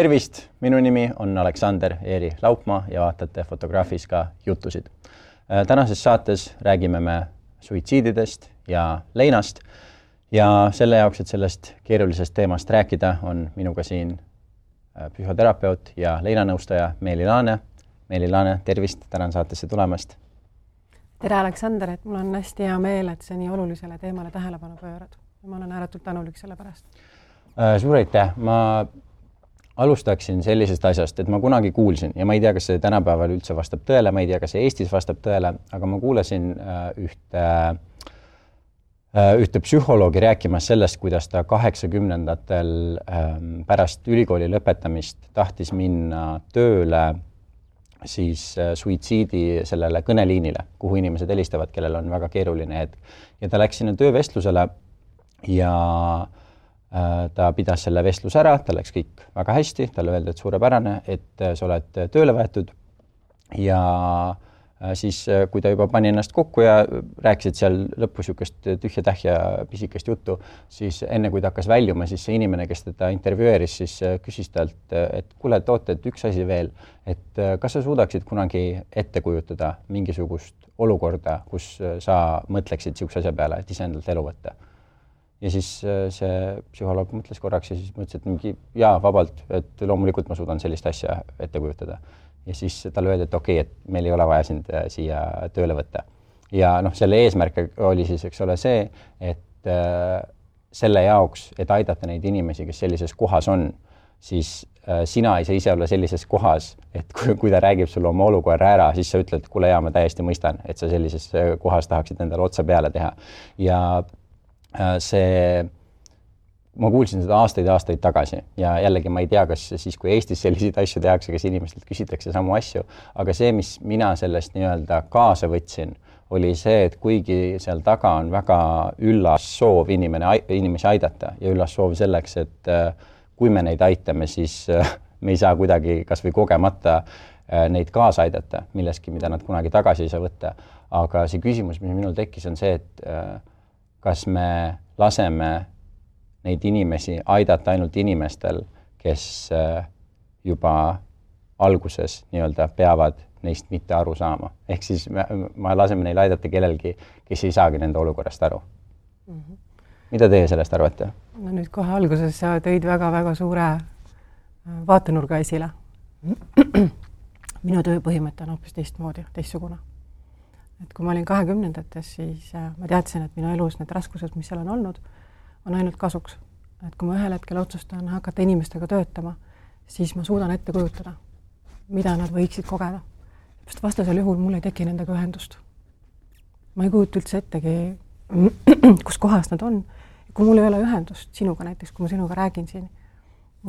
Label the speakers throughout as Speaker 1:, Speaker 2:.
Speaker 1: Tervist, minu nimi on Aleksander Eeri Laupmaa ja vaatate Fotograafis ka jutusid. Tänases saates räägime me suitsiididest ja leinast ja selle jaoks, et sellest keerulisest teemast rääkida, on minuga siin psühhoterapeut ja leinanõustaja Meeli Laane. Meeli Laane, tervist, tänan saatesse tulemast.
Speaker 2: Tere Aleksander, et mul on hästi hea meel, et see nii olulisele teemale tähelepanu pöörad. Ma olen ääretult tänulik selle pärast.
Speaker 1: Suur aitäh. Ma alustaksin sellisest asjast, et ma kunagi kuulsin ja ma ei tea, kas see tänapäeval üldse vastab tõele, ma ei tea, kas see Eestis vastab tõele, aga ma kuulasin ühte psühholoogi rääkimas sellest, kuidas ta 80-ndatel pärast ülikooli lõpetamist tahtis minna tööle siis suitsiidi sellele kõneliinile, kuhu inimesed helistavad, kellel on väga keeruline hetk. Ja ta läks sinna töövestlusele ja ta pidas selle vestluse ära, ta läks kõik väga hästi, talle öeldi, et suurepärane, et sa oled tööle võetud ja siis, kui ta juba pani ennast kokku ja rääkisid seal lõpus niisugust tühja-tähja pisikest juttu, siis enne kui ta hakkas väljuma, siis see inimene, kes teda intervjueeris, siis küsis talt, et kuule, toote, et üks asi veel, et kas sa suudaksid kunagi ette kujutada mingisugust olukorda, kus sa mõtleksid niisuguse asja peale, et iseendalt elu võtta? Ja siis see psühholoog mõtles korraks ja siis mõtles, et mingi jaa, vabalt, et loomulikult ma suudan sellist asja ette kujutada. Ja siis talle öeldi, et okei, et meil ei ole vaja sind siia tööle võtta. Ja selle eesmärk oli siis, eks ole, see, et selle jaoks, et aidata neid inimesi, kes sellises kohas on, siis sina ei saa ise olla sellises kohas, et kui ta räägib sulle oma olukorra ära, siis sa ütled, kuule jaa, ma täiesti mõistan, et sa sellises kohas tahaksid endale otsa peale teha. Ja ma kuulsin seda aastaid tagasi ja jällegi ma ei tea, kas siis, kui Eestis selliseid asju tehakse, kas inimestelt küsitakse samu asju, aga see, mis mina sellest nii-öelda kaasa võtsin, oli see, et kuigi seal taga on väga üllas soov inimesi aidata ja üllas soov selleks, et kui me neid aitame, siis me ei saa kuidagi kas või kogemata neid kaasa aidata milleski, mida nad kunagi tagasi ei saa võtta. Aga see küsimus, mis minul tekkis, on see, et kas me laseme neid inimesi aidata ainult inimestel, kes juba alguses nii-öelda peavad neist mitte aru saama. Ehk siis me laseme neil aidata kellelgi, kes ei saagi nende olukorrast aru. Mida teie sellest arvate?
Speaker 2: No nüüd kohe alguses sa tõid väga-väga suure vaatenurga esile. Minu tööpõhimõte on hoopis teistsugune. Et kui ma olin 20-ndates, siis ma teadsin, et minu elus need raskused, mis seal on olnud, on ainult kasuks. Et kui ma ühel hetkel otsustan hakata inimestega töötama, siis ma suudan ette kujutada, mida nad võiksid kogeda. Sest vastasel juhul mul ei teki nendega ühendust. Ma ei kujuta üldse ettegi, kus kohas nad on. Kui mul ei ole ühendust sinuga näiteks, kui ma sinuga räägin siin,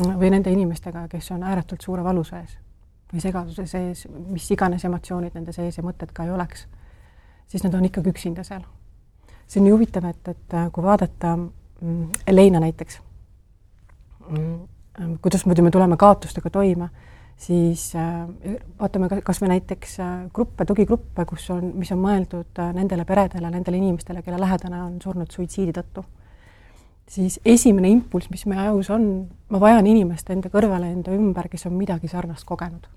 Speaker 2: või nende inimestega, kes on ääretult suure valu sees või segaduse sees, mis iganes emotsioonid nende sees ja mõtted ka ei oleks, siis nad on ikkagi üksinda seal. See on nii huvitav, et kui vaadata leina näiteks, kuidas me tuleme kaotustega toime, siis vaatame kas me näiteks tugigruppe, mis on mõeldud nendele peredele, nendele inimestele, kelle lähedane on surnud suitsiidi tõttu. Siis esimene impulss, mis meie ajus on, ma vajan inimest enda kõrvale, enda ümber, kes on midagi sarnast kogenud.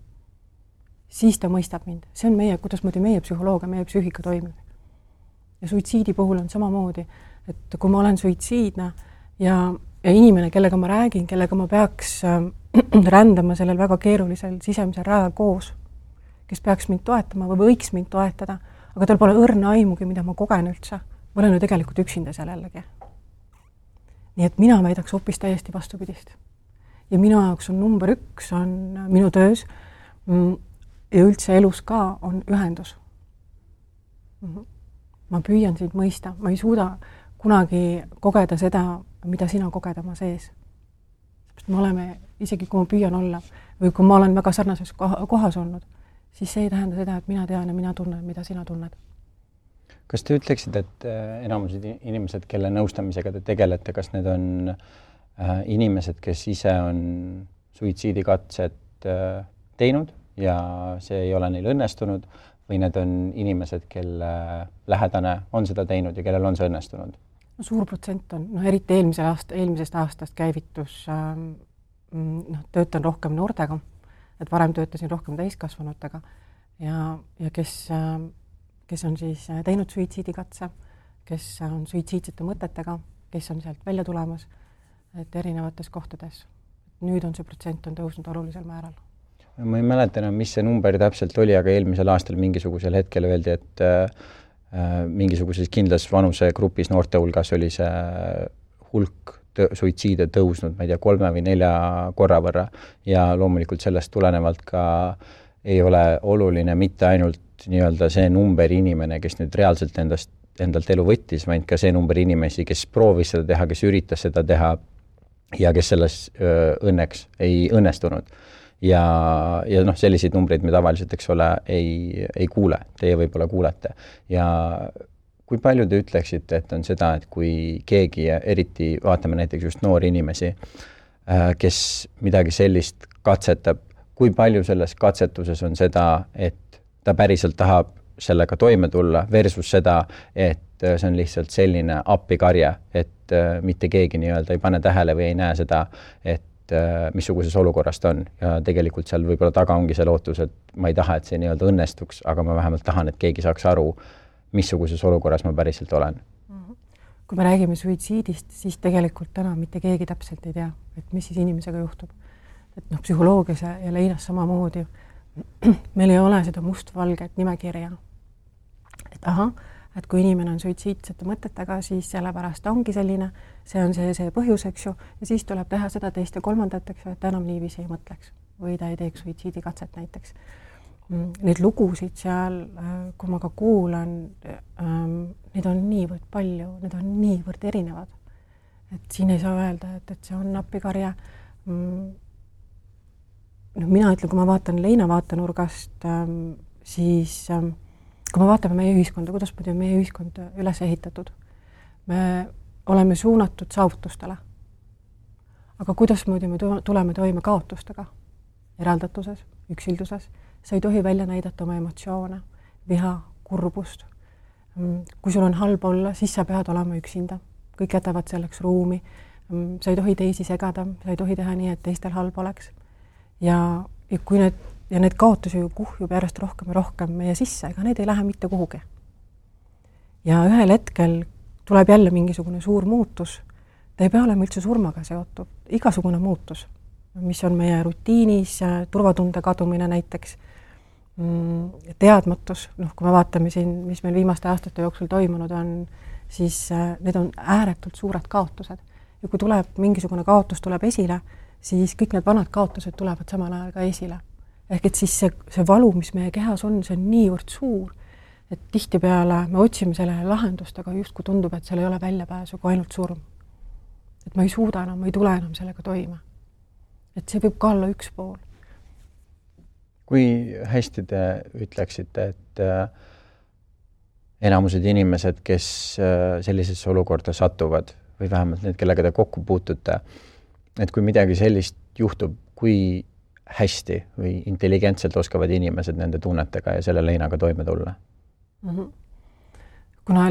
Speaker 2: Siis ta mõistab mind. See on kuidas meie psühholoogia, meie psüühika toimib. Ja suitsiidi puhul on samamoodi, et kui ma olen suitsiidne ja inimene, kellega ma räägin, kellega ma peaks rändama sellel väga keerulisel sisemisel rajal koos, kes peaks mind toetama või võiks mind toetada, aga tal pole õrna aimugi, mida ma kogen üldse. Ma olen ju tegelikult üksinda seal jällegi. Nii et mina väidaks hoopis täiesti vastupidist. Ja minu jaoks on number 1 on minu töös ja üldse elus ka on ühendus. Ma püüan sind mõista. Ma ei suuda kunagi kogeda seda, mida sina koged oma sees. Me oleme, isegi kui ma püüan olla või kui ma olen väga sarnases kohas olnud, siis see ei tähenda seda, et mina tean ja mina tunnen, mida sina tunned.
Speaker 1: Kas te ütleksid, et enamused inimesed, kelle nõustamisega te tegelete, kas need on inimesed, kes ise on suitsiidikatset teinud ja see ei ole neil õnnestunud või need on inimesed, kelle lähedane on seda teinud ja kellel on see õnnestunud?
Speaker 2: Suur protsent on, eriti eelmisest aastast käivitus töötan rohkem noortega, et varem töötasin rohkem täiskasvanutega ja kes on siis teinud suitsiidikatse, kes on suitsiidsete mõtetega, kes on sealt välja tulemas, et erinevates kohtades. Nüüd on see protsent on tõusnud olulisel määral.
Speaker 1: Ma ei mäleta enam, mis see number täpselt oli, aga eelmisel aastal mingisugusel hetkel öeldi, et mingisuguses kindlas vanusegrupis noorte hulgas oli see hulk suitsiide tõusnud, ma ei tea, 3 või 4 korra võrra ja loomulikult sellest tulenevalt ka ei ole oluline mitte ainult nii-öelda see number inimene, kes nüüd reaalselt endalt elu võttis, vaid ka see number inimesi, kes proovis seda teha, kes üritas seda teha ja kes selles õnneks ei õnnestunud. Ja selliseid numbreid me tavaliselt, eks ole, ei kuule. Teie võib-olla kuulete. Ja kui palju te ütleksite, et on seda, et kui keegi, eriti vaatame näiteks just noori inimesi, kes midagi sellist katsetab, kui palju selles katsetuses on seda, et ta päriselt tahab sellega toime tulla versus seda, et see on lihtsalt selline appikarje, et mitte keegi nii-öelda ei pane tähele või ei näe seda, et missuguses olukorras ta on ja tegelikult seal võib-olla taga ongi see lootus, et ma ei taha, et see nii-öelda õnnestuks, aga ma vähemalt tahan, et keegi saaks aru, missuguses olukorras ma päriselt olen.
Speaker 2: Kui me räägime suitsiidist, siis tegelikult täna mitte keegi täpselt ei tea, et mis siis inimesega juhtub. Et psühholoogias ja leinas samamoodi meil ei ole seda mustvalget nimekirja. Et et kui inimene on suitsiidsete mõtetega, siis sellepärast ongi selline, see on see põhjus, eks ju, ja siis tuleb teha seda teist ja kolmandat, eks ju, et ta enam niiviisi ei mõtleks või ta ei teeks suitsiidikatset näiteks. Neid lugusid seal, kui ma ka kuulan, neid on niivõrd palju, need on niivõrd erinevad. Et siin ei saa öelda, et see on appikarja. Mina ütlen, kui ma vaatan leina vaatenurgast, siis kui me vaatame meie ühiskonda, kuidas on meie ühiskond üles ehitatud, me oleme suunatud saavutustele. Aga kuidas me tuleme toime kaotustega, eraldatuses, üksilduses, sa ei tohi välja näidata oma emotsioone, viha, kurbust. Kui sul on halb olla, siis sa pead olema üksinda. Kõik jätavad selleks ruumi. Sa ei tohi teisi segada, sa ei tohi teha nii, et teistel halb oleks. Ja kui need kaotusi ju kuhjub järjest rohkem ja rohkem meie sisse, ega need ei lähe mitte kuhugi. Ja ühel hetkel tuleb jälle mingisugune suur muutus. Ta ei pea olema üldse surmaga seotud. Igasugune muutus, mis on meie rutiinis, turvatunde kadumine näiteks, teadmatus, kui me vaatame siin, mis meil viimaste aastate jooksul toimunud on, siis need on ääretult suured kaotused. Ja kui tuleb mingisugune kaotus tuleb esile, siis kõik need vanad kaotused tulevad samal ajal ka esile. Ehk et siis see valu, mis meie kehas on, see on niivõrd suur, et tihtipeale me otsime sellele lahendust, aga just kui tundub, et seal ei ole väljapääsu kui ainult surm. Et ma ei suuda enam, ma ei tule enam sellega toime. Et see võib ka olla üks pool.
Speaker 1: Kui hästi te ütleksite, et enamused inimesed, kes sellisesse olukorda satuvad, või vähemalt need, kellega te kokku puutute, et kui midagi sellist juhtub, kui hästi või intelligentselt oskavad inimesed nende tunnetega ja selle leinaga toime tulla?
Speaker 2: Kuna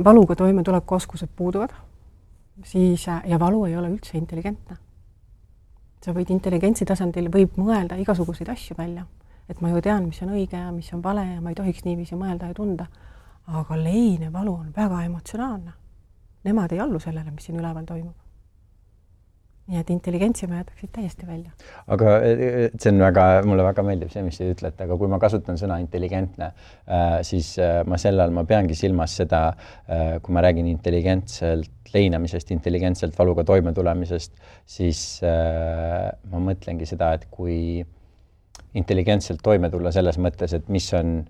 Speaker 2: valuga toime tuleku oskused puuduvad, siis ja valu ei ole üldse intelligentne. Sa võid intelligentsi tasandil võib mõelda igasuguseid asju välja, et ma ju tean, mis on õige ja mis on vale ja ma ei tohiks niiviisi mõelda ja tunda, aga lein ja valu on väga emotsionaalne. Nemad ei allu sellele, mis siin üleval toimub. Nii et intelligentsi me jätaksid täiesti välja.
Speaker 1: Aga see on mulle väga meeldib see, mis te ütlete, aga kui ma kasutan sõna intelligentne, siis ma peangi silmas seda, kui ma räägin intelligentselt leinamisest, intelligentselt valuga toime tulemisest, siis ma mõtlengi seda, et kui intelligentselt toime tulla selles mõttes, et mis on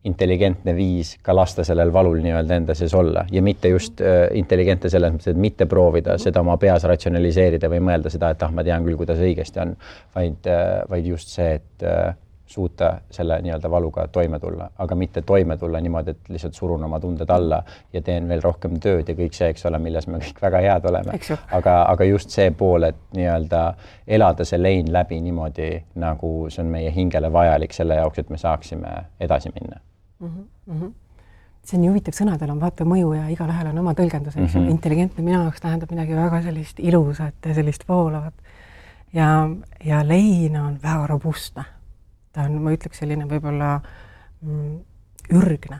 Speaker 1: intelligentne viis ka lasta sellel valul nii-öelda enda sees olla ja mitte just intelligentne selles mõttes, et mitte proovida seda oma peas ratsionaliseerida või mõelda seda, et ma tean küll, kuidas õigesti on, vaid just see, et suuta selle nii-öelda valuga toime tulla, aga mitte toime tulla niimoodi, et lihtsalt surun oma tunded alla ja teen veel rohkem tööd ja kõik see, eks ole, milles me kõik väga head oleme. Aga just see pool, et nii-öelda elada see lein läbi niimoodi, nagu see on meie hingele vajalik selle jaoks, et me saaksime edasi minna.
Speaker 2: See on huvitav sõnadel on vaata mõju ja igal ühel on oma tõlgendus. Intelligentne minu jaoks tähendab midagi väga sellist ilusat ja sellist voolavat. ja lein on väga robustne. Ta on, ma ütleks, selline võib-olla ürgne.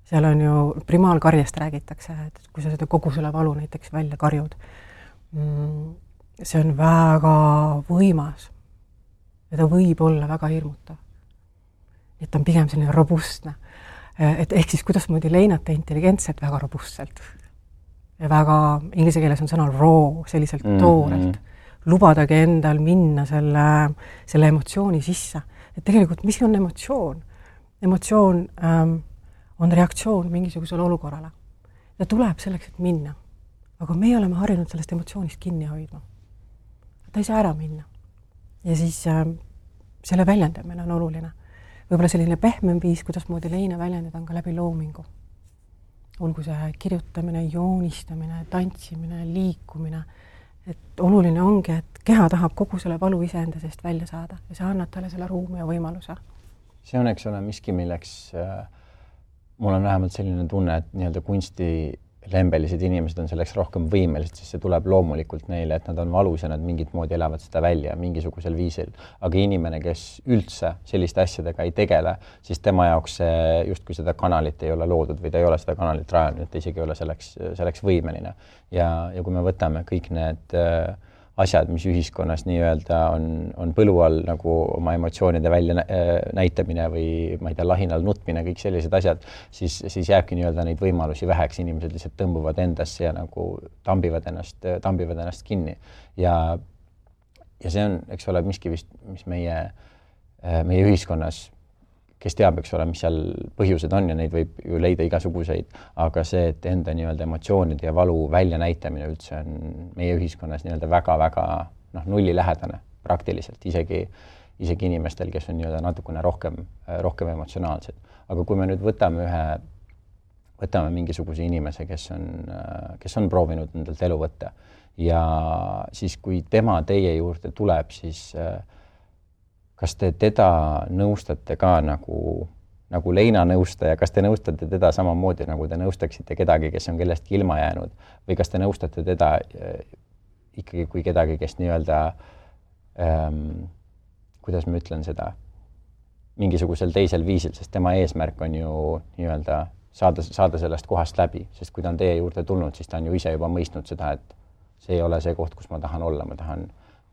Speaker 2: Seal on ju primaalkarjast räägitakse, et kui sa seda kogu selle valu näiteks välja karjud, see on väga võimas ja ta võib olla väga hirmutav. Et ta on pigem selline robustne. Et ehk siis kuidasmoodi leinata intelligentselt väga robustselt. Ja väga, inglise keeles on sõna raw, selliselt toorelt. Lubadagi endal minna selle emotsiooni sisse. Et tegelikult, mis on emotsioon? Emotsioon on reaktsioon mingisugusele olukorrale. Ta tuleb selleks, et minna. Aga me oleme harjunud sellest emotsioonist kinni hoidma. Ta ei saa ära minna. Ja siis selle väljendamine on oluline. Võib-olla selline pehmem viis, kuidas moodi leina väljendada on ka läbi loomingu. Olgu see kirjutamine, joonistamine, tantsimine, liikumine. Et oluline ongi, et keha tahab kogu selle valu iseenda seest välja saada ja see annab talle selle ruumi ja võimaluse.
Speaker 1: See on, eks ole, miski, milleks mul on vähemalt selline tunne, et nii-öelda kunstilembelised inimesed on selleks rohkem võimelised, siis see tuleb loomulikult neile, et nad on valus ja nad mingit moodi elavad seda välja mingisugusel viisil. Aga inimene, kes üldse selliste asjadega ei tegele, siis tema jaoks justkui seda kanalit ei ole loodud või ta ei ole seda kanalit rajanud, et ta isegi ei ole selleks võimeline. Ja kui me võtame kõik need asjad, mis ühiskonnas nii-öelda on põlu all nagu oma emotsioonide välja näitamine või ma ei tea, lahinal nutmine, kõik sellised asjad, siis jääbki nii-öelda neid võimalusi väheks, inimesed lihtsalt tõmbuvad endasse ja nagu tambivad ennast kinni. Ja see on, eks ole, miski vist, mis meie ühiskonnas, kes teab, eks ole, mis seal põhjused on ja neid võib ju leida igasuguseid, aga see, et enda nii-öelda emotsioonide ja valu välja näitamine üldse on meie ühiskonnas nii-öelda väga-väga nullilähedane praktiliselt, isegi inimestel, kes on nii-öelda natukene rohkem emotsionaalsed. Aga kui me nüüd võtame mingisuguse inimese, kes on proovinud endalt elu võtta ja siis, kui tema teie juurde tuleb, siis kas te teda nõustate ka nagu leina nõustaja, kas te nõustate teda samamoodi, nagu te nõustaksite kedagi, kes on kellestki ilma jäänud, või kas te nõustate teda ikkagi kui kedagi, kes nii-öelda, kuidas ma ütlen seda, mingisugusel teisel viisil, sest tema eesmärk on ju nii-öelda saada sellest kohast läbi, sest kui ta on teie juurde tulnud, siis ta on ju ise juba mõistnud seda, et see ei ole see koht, kus ma tahan olla, ma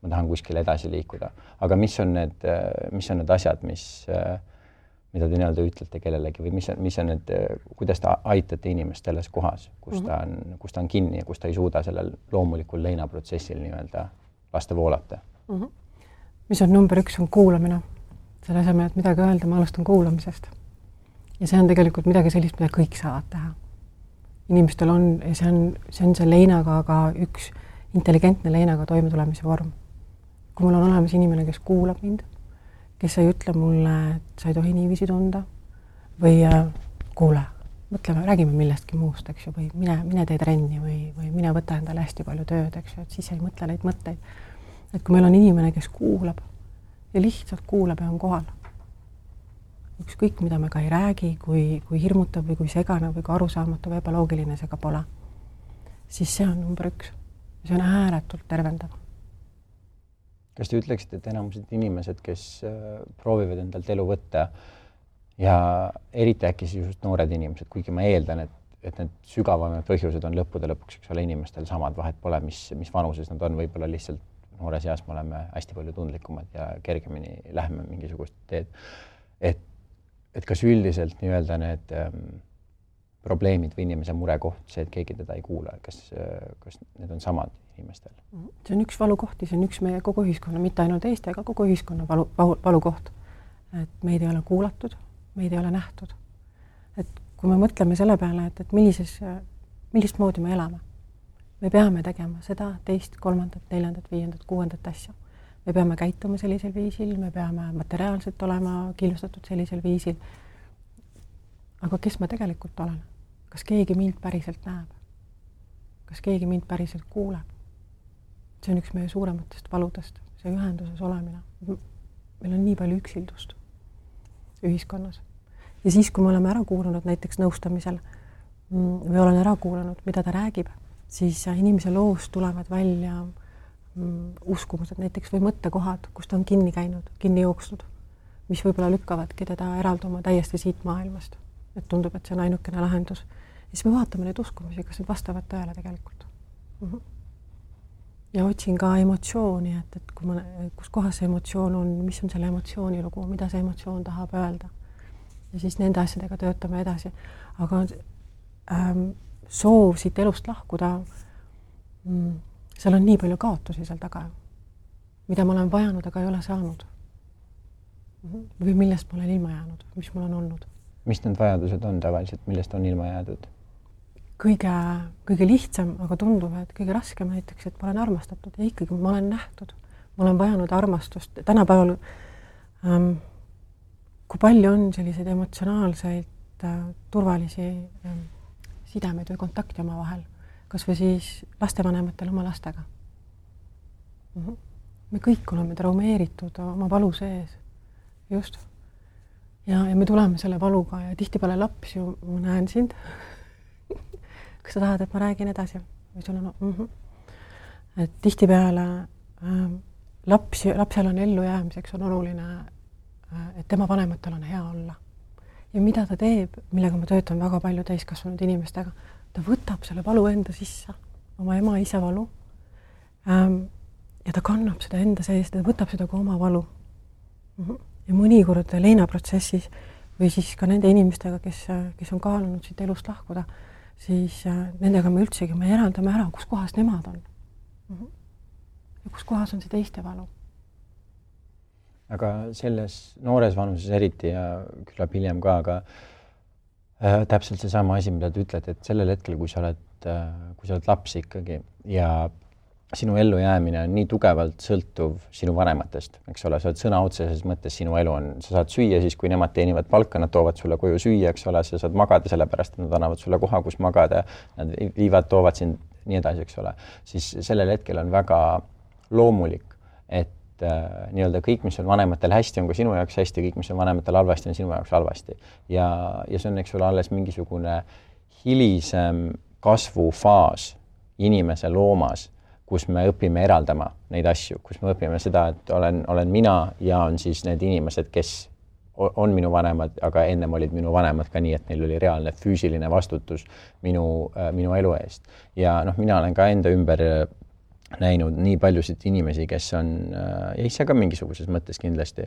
Speaker 1: tahan kuskile edasi liikuda. Aga mis on need asjad, mida te nii-öelda ütlete kellelegi või mis on need, kuidas te aitate inimest selles kohas, kus ta on kinni ja kus ta ei suuda sellel loomulikul leinaprotsessil nii-öelda lasta voolata?
Speaker 2: Mis on number 1 on kuulamine. Selle asemel, et midagi öelda, ma alustan kuulamisest. Ja see on tegelikult midagi sellist, mida kõik saavad teha. Inimestel on, ja see on see leinaga ka üks intelligentne leinaga toimetulemise vorm. Kui mul on olemas inimene, kes kuulab mind, kes ei ütle mulle, et sa ei tohi niiviisi tunda või kuule, mõtleme, räägime millestki muust, eks ju, või mine tee trenni või mine võta endale hästi palju tööd, eks ju, et siis ei mõtle neid mõtteid. Et kui meil on inimene, kes kuulab ja lihtsalt kuulab ja on kohal, ükskõik, mida me ka ei räägi, kui hirmutav või kui segane või kui arusaamatu või ebaloogiline see ka pole, siis see on number 1. See on ääretult tervendav.
Speaker 1: Kas te ütleksite, et enamused inimesed, kes proovivad endalt elu võtta ja eriti äkki just noored inimesed, kuigi ma eeldan, et need sügavamad põhjused on lõppude lõpuks, eks ole, inimestel samad, vahet pole, mis vanuses nad on, võib-olla lihtsalt noores eas me oleme hästi palju tundlikumad ja kergemini läheme mingisugust teed. Et kas üldiselt nii-öelda need probleemid või inimese murekoht, see, et keegi teda ei kuula, kas need on samad inimestel?
Speaker 2: See on üks valukohti, see on üks meie kogu ühiskonna, mitte ainult Eesti, aga kogu ühiskonna valukoht. Et meid ei ole kuulatud, meid ei ole nähtud. Et kui me mõtleme selle peale, et millist moodi me elame, me peame tegema seda, teist, kolmandat, neljandat, viiendat, kuuendat asja. Me peame käituma sellisel viisil, me peame materiaalselt olema kindlustatud sellisel viisil. Aga kes ma tegelikult olen? Kas keegi mind päriselt näeb? Kas keegi mind päriselt kuuleb? See on üks meie suurematest valudest, see ühenduses olemine. Meil on nii palju üksildust ühiskonnas. Ja siis, kui me oleme ära kuulanud näiteks nõustamisel või olen ära kuulanud, mida ta räägib, siis inimese loost tulevad välja uskumused näiteks või mõttekohad, kus ta on kinni käinud, kinni jooksnud, mis võib-olla lükkavadki teda eralduma täiesti siit maailmast. Et tundub, et see on ainukene lahendus. Ja siis me vaatame neid uskumusi, kas need vastavad tõele tegelikult. Ja otsin ka emotsiooni, et kui kus kohas see emotsioon on, mis on selle emotsiooni lugu, mida see emotsioon tahab öelda. Ja siis nende asjadega töötame edasi. Aga soov siit elust lahkuda, seal on nii palju kaotusi seal taga, mida ma olen vajanud, aga ei ole saanud. Või millest ma olen ilma jäänud, mis mul on olnud.
Speaker 1: Mis need vajadused on tavaliselt, millest on ilma jäädud?
Speaker 2: Kõige lihtsam, aga tundub, et kõige raskem näiteks, et ma olen armastatud ja ikkagi ma olen nähtud. Ma olen vajanud armastust. Tänapäeval, kui palju on selliseid emotsionaalseid turvalisi sidemeid või kontakti oma vahel, kas või siis lastevanematel oma lastega. Me kõik oleme traumeeritud oma valu sees. Just. Ja me tuleme selle valuga ja tihtipeale laps ju, ma näen sind. Kas sa tahad, et ma räägin edasi? Või sul on, Et tihtipeale lapsel on ellu jäämiseks on oluline, et tema vanematel on hea olla. Ja mida ta teeb, millega ma töötan väga palju täiskasvanud inimestega, ta võtab selle valu enda sisse, oma ema isa valu, ja ta kannab seda enda sees, ta võtab seda kui oma valu. Ja mõnikord leinaprotsessis või siis ka nende inimestega, kes on kaalunud siit elust lahkuda, siis nendega me üldsegi me eraldame ära, kus kohas nemad on. Ja kus kohas on see teiste valu.
Speaker 1: Aga selles noores vanuses eriti ja küllap hiljem ka, aga täpselt see sama asi, mida te ütlete, et sellel hetkel, kui sa oled laps ikkagi ja sinu ellu jäämine on nii tugevalt sõltuv sinu vanematest, eks ole, sa oled sõna otseses mõttes sinu elu on, sa saad süüa siis, kui nemad teenivad palka, nad toovad sulle koju süüa, eks ole, sa saad magada sellepärast, et nad annavad sulle koha, kus magada, nad toovad sind nii edasi, eks ole, siis sellel hetkel on väga loomulik, et nii-öelda kõik, mis on vanematel hästi, on ka sinu jaoks hästi, kõik, mis on vanematel halvasti, on sinu jaoks halvasti. Ja see on, eks ole, alles mingisugune hilisem kasvufaas inimese loomas, kus me õpime eraldama neid asju, kus me õpime seda, et olen mina ja on siis need inimesed, kes on minu vanemad, aga ennem olid minu vanemad ka nii, et neil oli reaalne füüsiline vastutus minu elu eest. Ja mina olen ka enda ümber näinud nii paljusid inimesi, kes on, ja ise ka mingisuguses mõttes kindlasti,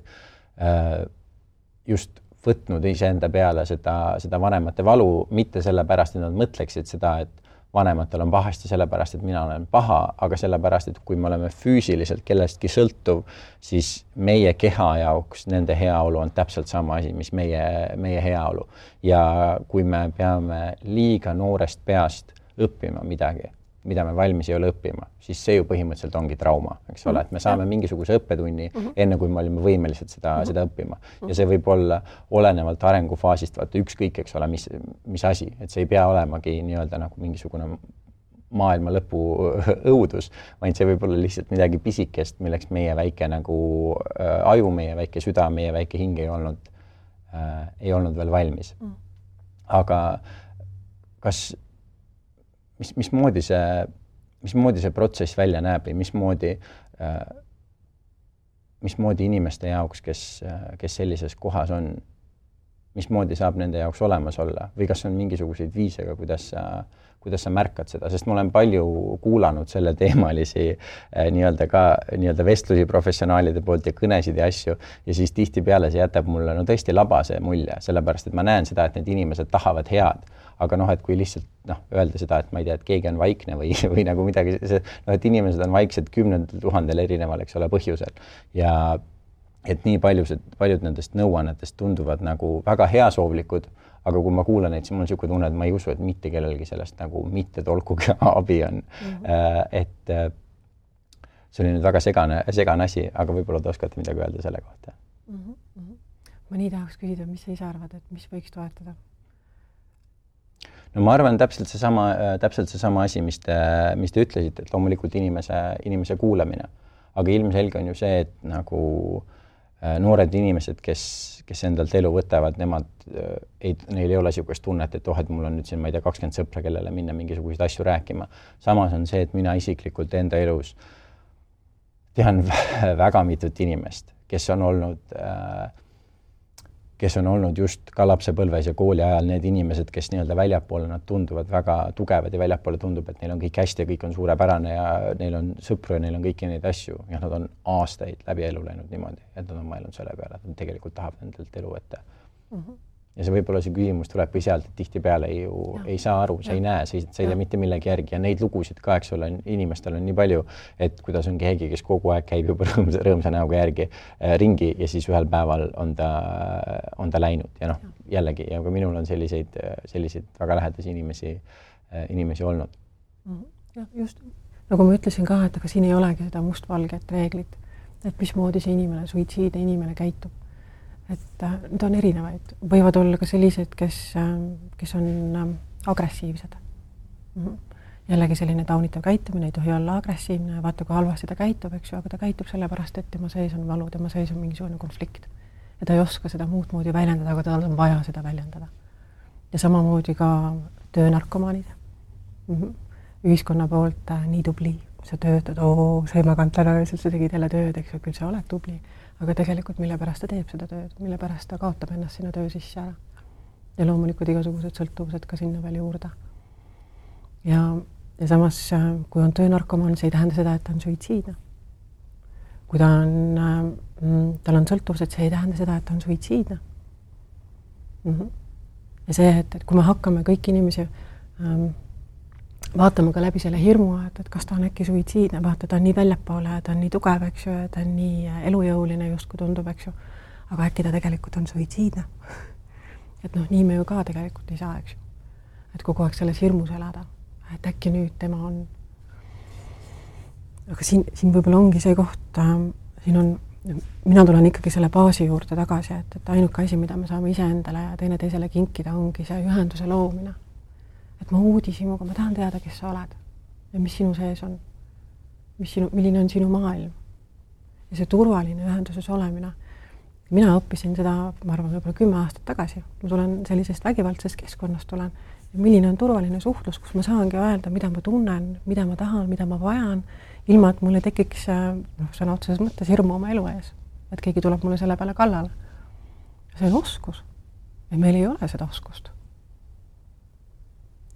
Speaker 1: just võtnud iseenda peale seda vanemate valu, mitte sellepärast, et nad mõtleksid seda, et vanematel on pahasti sellepärast, et mina olen paha, aga sellepärast, et kui me oleme füüsiliselt kellestki sõltuv, siis meie keha jaoks nende heaolu on täpselt sama asi, mis meie heaolu. Ja kui me peame liiga noorest peast õppima midagi, mida me valmis ei ole õppima, siis see ju põhimõtteliselt ongi trauma, eks ole, et me saame mingisuguse õppetunni enne, kui me olime võimelised seda õppima. Ja see võib olla olenevalt arengufaasist, vaata ükskõik, eks ole, mis asi, et see ei pea olemagi nii-öelda nagu mingisugune maailma lõpu õudus, vaid see võib olla lihtsalt midagi pisikest, milleks meie väike nagu aju, meie väike süda, meie väike hing ei olnud veel valmis. Aga kas mismoodi see protsess välja näeb või mismoodi inimeste jaoks, kes sellises kohas on, mismoodi saab nende jaoks olemas olla või kas on mingisuguseid viisega, kuidas sa märkad seda, sest ma olen palju kuulanud selle teemalisi nii-öelda vestlusi professionaalide poolt ja kõnesid ja asju ja siis tihtipeale see jätab mulle tõesti labase mulje, sellepärast et ma näen seda, et need inimesed tahavad head, aga et kui lihtsalt öelda seda, et ma ei tea, et keegi on vaikne või nagu midagi, et inimesed on vaiksed 10 000 erineval, eks ole, põhjusel ja et nii paljud nendest nõuannetest tunduvad nagu väga heasoovlikud, aga kui ma kuulan neid, siis mul on niisugune tunne, et ma ei usu, et mitte kellelgi sellest nagu mitte tolkugi abi on. Et see oli nüüd väga segane asi, aga võib-olla te oskate midagi öelda selle kohta.
Speaker 2: Ma nii tahaks küsida, mis sa ise arvad, et mis võiks toetada?
Speaker 1: No ma arvan täpselt see sama asi, mis te ütlesite, et loomulikult inimese kuulamine. Aga ilmselge on ju see, et nagu noored inimesed, kes endalt elu võtavad, neil ei ole niisugust tunnet, et et mul on nüüd siin, ma ei tea, 20 sõpra, kellele minna mingisuguseid asju rääkima. Samas on see, et mina isiklikult enda elus tean väga mitut inimest, kes on olnud just ka lapsepõlves ja kooli ajal need inimesed, kes nii-öelda väljapoole nad tunduvad väga tugevad ja väljapoole tundub, et neil on kõik hästi ja kõik on suurepärane ja neil on sõpru ja neil on kõiki neid asju ja nad on aastaid läbi elu läinud niimoodi, et nad on mõelnud selle peale, et nad tegelikult tahavad endalt elu võtta. Ja see võib-olla see küsimus tulebki sealt, et tihtipeale ei saa aru, sa ei näe, sa ei tea mitte millegi järgi ja neid lugusid ka, eks ole, inimestel on nii palju, et kuidas on keegi, kes kogu aeg käib juba rõõmsa näoga järgi ringi ja siis ühel päeval on ta läinud ja jällegi, ja ka minul on selliseid väga lähedasi inimesi olnud.
Speaker 2: Ja just, nagu ma ütlesin ka, et aga siin ei olegi seda mustvalget reeglit, et mismoodi see inimene, suitsiidne inimene käitub. Et need on erinevaid. Võivad olla ka sellised, kes on agressiivsed. Jällegi selline taunitav käitumine, ei tohi olla agressiivne, vaata kui halvasti ta käitub, eks ju, aga ta käitub sellepärast, et tema sees on valu, tema sees on mingisugune konflikt. Ja ta ei oska seda muud moodi väljendada, aga tal on vaja seda väljendada. Ja samamoodi ka töönarkomaanid. Ühiskonna poolt nii tubli, sa töötad, sa ei maganud täna, sa tegid jälle tööd, eks ju, küll sa oled tubli. Aga tegelikult mille pärast ta teeb seda tööd, mille pärast ta kaotab ennast sinna töö sisse ära. Ja loomulikult igasugused sõltuvused ka sinna veel juurde. Ja samas, kui on töönarkomaan, see ei tähenda seda, et ta on suitsiidne. Kui tal on sõltuvused, see ei tähenda seda, et ta on suitsiidne. Ja see, et kui me hakkame kõik inimesi vaatame ka läbi selle hirmu, et kas ta on äkki suitsiidne, vaata, ta on nii väljapoole, ta on nii tugev, eks ju, ta on nii elujõuline just kui tundub, eks ju, aga äkki ta tegelikult on suitsiidne. Et nii me ju ka tegelikult ei saa, eks ju. Et kogu aeg selles hirmus elada, et äkki nüüd tema on. Aga siin võib-olla ongi see koht, mina tulen ikkagi selle baasi juurde tagasi, et ainuke asi, mida me saame iseendale ja teine teisele kinkida, ongi see ühenduse loomine. Et ma uudisimuga, ma tahan teada, kes sa oled ja mis sinu sees on, milline on sinu maailm. Ja see turvaline ühenduses olemine. Mina õppisin seda, ma arvan, võib-olla 10 aastat tagasi. Ma tulen sellisest vägivaldsest keskkonnast tulen. Ja milline on turvaline suhtlus, kus ma saangi öelda, mida ma tunnen, mida ma tahan, mida ma vajan, ilma et mulle tekiks sõna otseses mõttes hirmu oma elu ees. Et keegi tuleb mulle selle peale kallale. See on oskus. Ja meil ei ole seda oskust.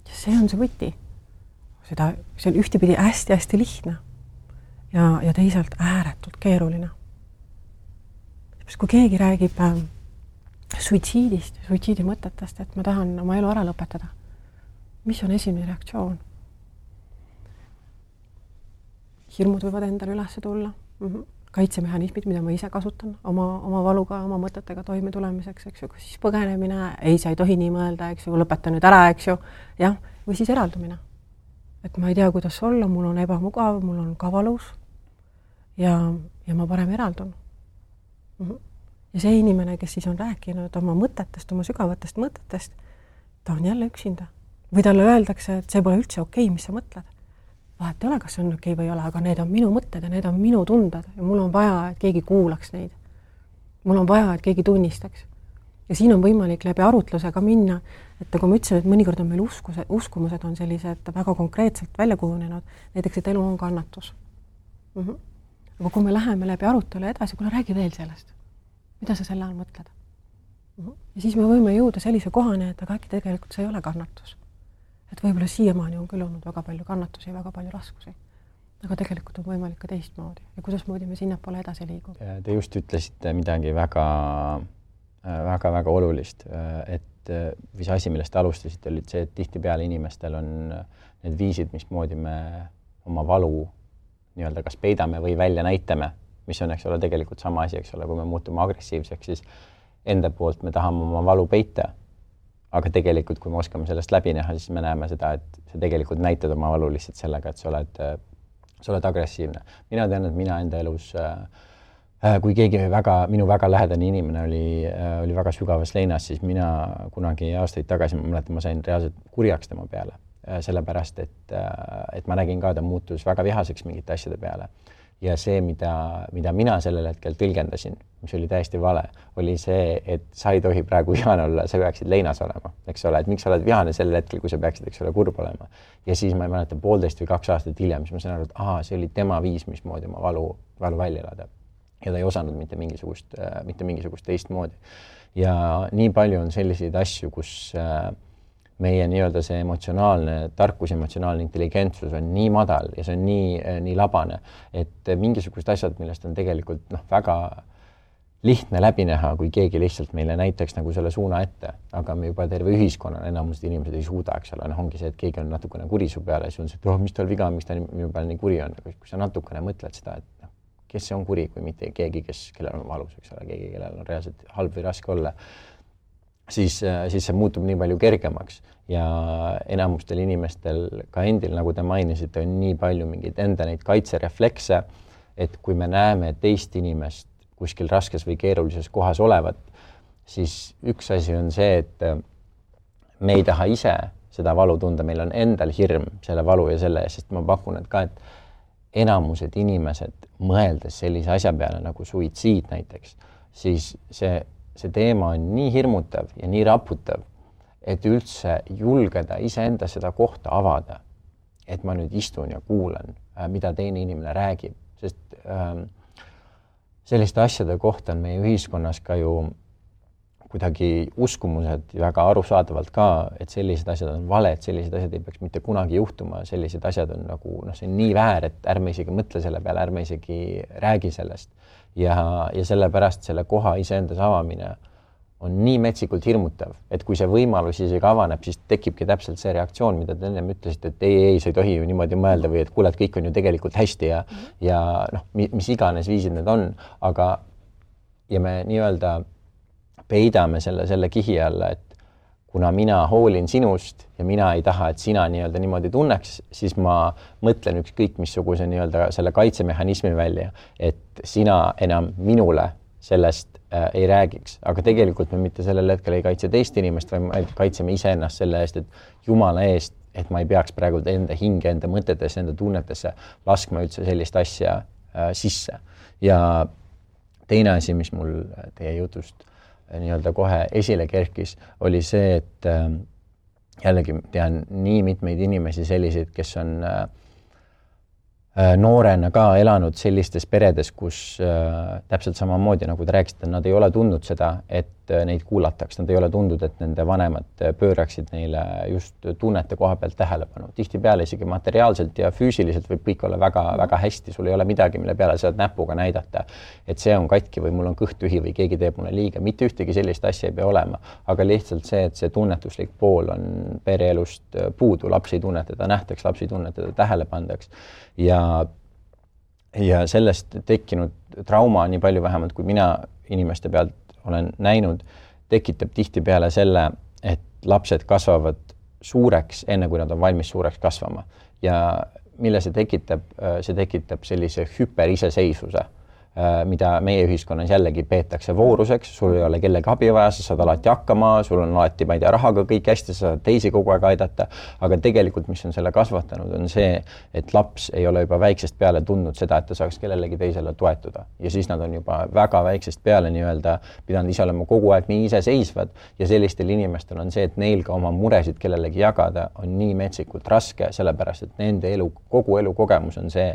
Speaker 2: Ja see on see võti. See on ühtepidi hästi-hästi lihtne ja teisalt ääretult keeruline. Kui keegi räägib suitsiidist, suitsiidi mõtetest, et ma tahan oma elu ära lõpetada, mis on esimene reaktsioon? Hirmud võivad endale üles tulla. Kaitsemehhanismid, mida ma ise kasutan oma valuga, oma mõtetega toime tulemiseks, eks ju, kas siis põgenemine, ei, sa ei tohi nii mõelda, eks ju, lõpeta nüüd ära, eks ju, jah, või siis eraldumine. Et ma ei tea, kuidas olla, mul on ebamugav, mul on ka valus ja ma parem eraldun. Ja see inimene, kes siis on rääkinud oma mõtetest, oma sügavatest mõtetest, ta on jälle üksinda. Või talle öeldakse, et see pole üldse okei, mis sa mõtled. Vahet ei ole, kas see on okei või ei ole, aga need on minu mõtted ja need on minu tunded ja mul on vaja, et keegi kuulaks neid. Mul on vaja, et keegi tunnistaks. Ja siin on võimalik läbi arutlusega minna, et kui ma ütlesin, et mõnikord on meil uskumused on sellised väga konkreetselt välja kujunenud, näiteks, et elu on kannatus. Aga kui me läheme läbi arutelu edasi, kuule, räägi veel sellest. Mida sa selle all mõtled? Ja siis me võime jõuda sellise kohane, et aga äkki tegelikult see ei ole kannatus. Et võib-olla siiamaani on küll olnud väga palju kannatusi ja väga palju raskusi. Aga tegelikult on võimalik ka teistmoodi. Ja kuidas moodi me sinnapoole edasi liigub?
Speaker 1: Te just ütlesite midagi väga olulist, et mis asi, millest alustasite, oli see, et tihtipeale inimestel on need viisid, mismoodi me oma valu nii-öelda kas peidame või välja näitame, mis on, eks ole, tegelikult sama asi, eks ole, kui me muutume agressiivseks, siis enda poolt me tahame oma valu peita. Aga tegelikult, kui me oskame sellest läbi näha, siis me näeme seda, et sa tegelikult näitad oma valu lihtsalt sellega, et sa oled agressiivne. Mina tean, et mina enda elus, kui keegi minu väga lähedane inimene oli väga sügavas leinas, siis mina kunagi aastaid tagasi, ma sain reaalselt kurjaks tema peale. Sellepärast, et ma nägin ka, ta muutus väga vihaseks mingite asjade peale. ja see, mida mina sellel hetkel tõlgendasin, mis oli täiesti vale, oli see, et sa ei tohi praegu vihane olla, sa peaksid leinas olema, eks ole, et miks sa oled vihane sellel hetkel, kui sa peaksid, eks ole, kurb olema. Ja siis ma ei mäleta 1,5 või 2 aastat hiljem, siis ma sain aru, et see oli tema viis, mismoodi oma valu välja elada. Ja ta ei osanud mitte mingisugust teistmoodi. Ja nii palju on selliseid asju, kus meie nii-öelda see emotsionaalne tarkus, emotsionaalne intelligentsus on nii madal ja see on nii labane, et mingisugused asjad, millest on tegelikult väga lihtne läbi näha, kui keegi lihtsalt meile näiteks nagu selle suuna ette, aga me juba terve ühiskonnana enamused inimesed ei suuda, eks ole, ongi see, et keegi on natukene kuri su peale ja siis on see, et mis tal viga on, miks ta minu peal nii kuri on, kui sa natukene mõtled seda, et kes see on kuri, kui mitte keegi, kellel on valus, eks ole, keegi, kellel on reaalselt halb või raske olla, siis see muutub nii palju kergemaks ja enamustel inimestel ka endil, nagu te mainisite, on nii palju mingeid enda neid kaitsereflekse, et kui me näeme teist inimest kuskil raskes või keerulises kohas olevat, siis üks asi on see, et me ei taha ise seda valu tunda, meil on endal hirm selle valu ja selle eest, sest ma pakun, et ka, et enamused inimesed mõeldes sellise asja peale nagu suitsiid näiteks, siis see teema on nii hirmutav ja nii raputav, et üldse julgeda iseenda seda kohta avada, et ma nüüd istun ja kuulan, mida teine inimene räägib, sest selliste asjade kohta on meie ühiskonnas ka ju kuidagi uskumused väga arusaadavalt ka, et sellised asjad on vale, et sellised asjad ei peaks mitte kunagi juhtuma, sellised asjad on nagu, see on nii väär, et ärme isegi mõtle selle peale, ärme isegi räägi sellest. Ja sellepärast selle koha iseendas avamine on nii metsikult hirmutav, et kui see võimalus isegi avaneb, siis tekibki täpselt see reaktsioon, mida te ennem ütlesite, et ei, sa ei tohi ju niimoodi mõelda või et kuule, et kõik on ju tegelikult hästi ja mis iganes viisid need on, aga ja me nii-öelda peidame selle kihi alla, et kuna mina hoolin sinust ja mina ei taha, et sina nii-öelda niimoodi tunneks, siis ma mõtlen ükskõik missuguse nii-öelda selle kaitsemehhanismi välja, et sina enam minule sellest ei räägiks, aga tegelikult me mitte sellel hetkel ei kaitse teist inimest, vaid me kaitseme iseennast selle eest, et Jumala eest, et ma ei peaks praegu enda hinge, enda mõtetesse, enda tunnetesse laskma üldse sellist asja sisse. Ja teine asi, mis mul teie jutust nii-öelda kohe esile kerkis, oli see, et jällegi tean nii mitmeid inimesi selliseid, kes on noorena ka elanud sellistes peredes, kus täpselt samamoodi, nagu te rääkisite, nad ei ole tundnud seda, et neid kuulataks, nad ei ole tundnud, et nende vanemad pööraksid neile just tunnete koha pealt tähelepanu. Tihtipeale isegi materiaalselt ja füüsiliselt võib kõik olla väga, väga hästi, sul ei ole midagi, mille peale saad näpuga näidata, et see on katki või mul on kõht tühi või keegi teeb mulle liiga. Mitte ühtegi sellist asja ei pea olema, aga lihtsalt see, et see tunnetuslik pool on pereelust puudu, lapsi tunnetada nähtaks, lapsi tunnetada tähele pandaks ja sellest tekkinud trauma nii palju vähemalt, kui mina inimeste pealt olen näinud, tekitab tihtipeale selle, et lapsed kasvavad suureks, enne kui nad on valmis suureks kasvama. Ja mille see tekitab sellise hüperiseseisvuse, mida meie ühiskonnas jällegi peetakse vooruseks, sul ei ole kellegi abi vaja, sa saad alati hakkama, sul on alati, ma ei tea, rahaga kõik hästi, sa saad teisi kogu aeg aidata, aga tegelikult, mis on selle kasvatanud, on see, et laps ei ole juba väiksest peale tundnud seda, et ta saaks kellelegi teisele toetuda. Ja siis nad on juba väga väiksest peale nii-öelda pidanud ise olema kogu aeg nii iseseisvad ja sellistel inimestel on see, et neil ka oma muresid kellelegi jagada on nii metsikult raske, sellepärast, et nende kogu elu kogemus on see,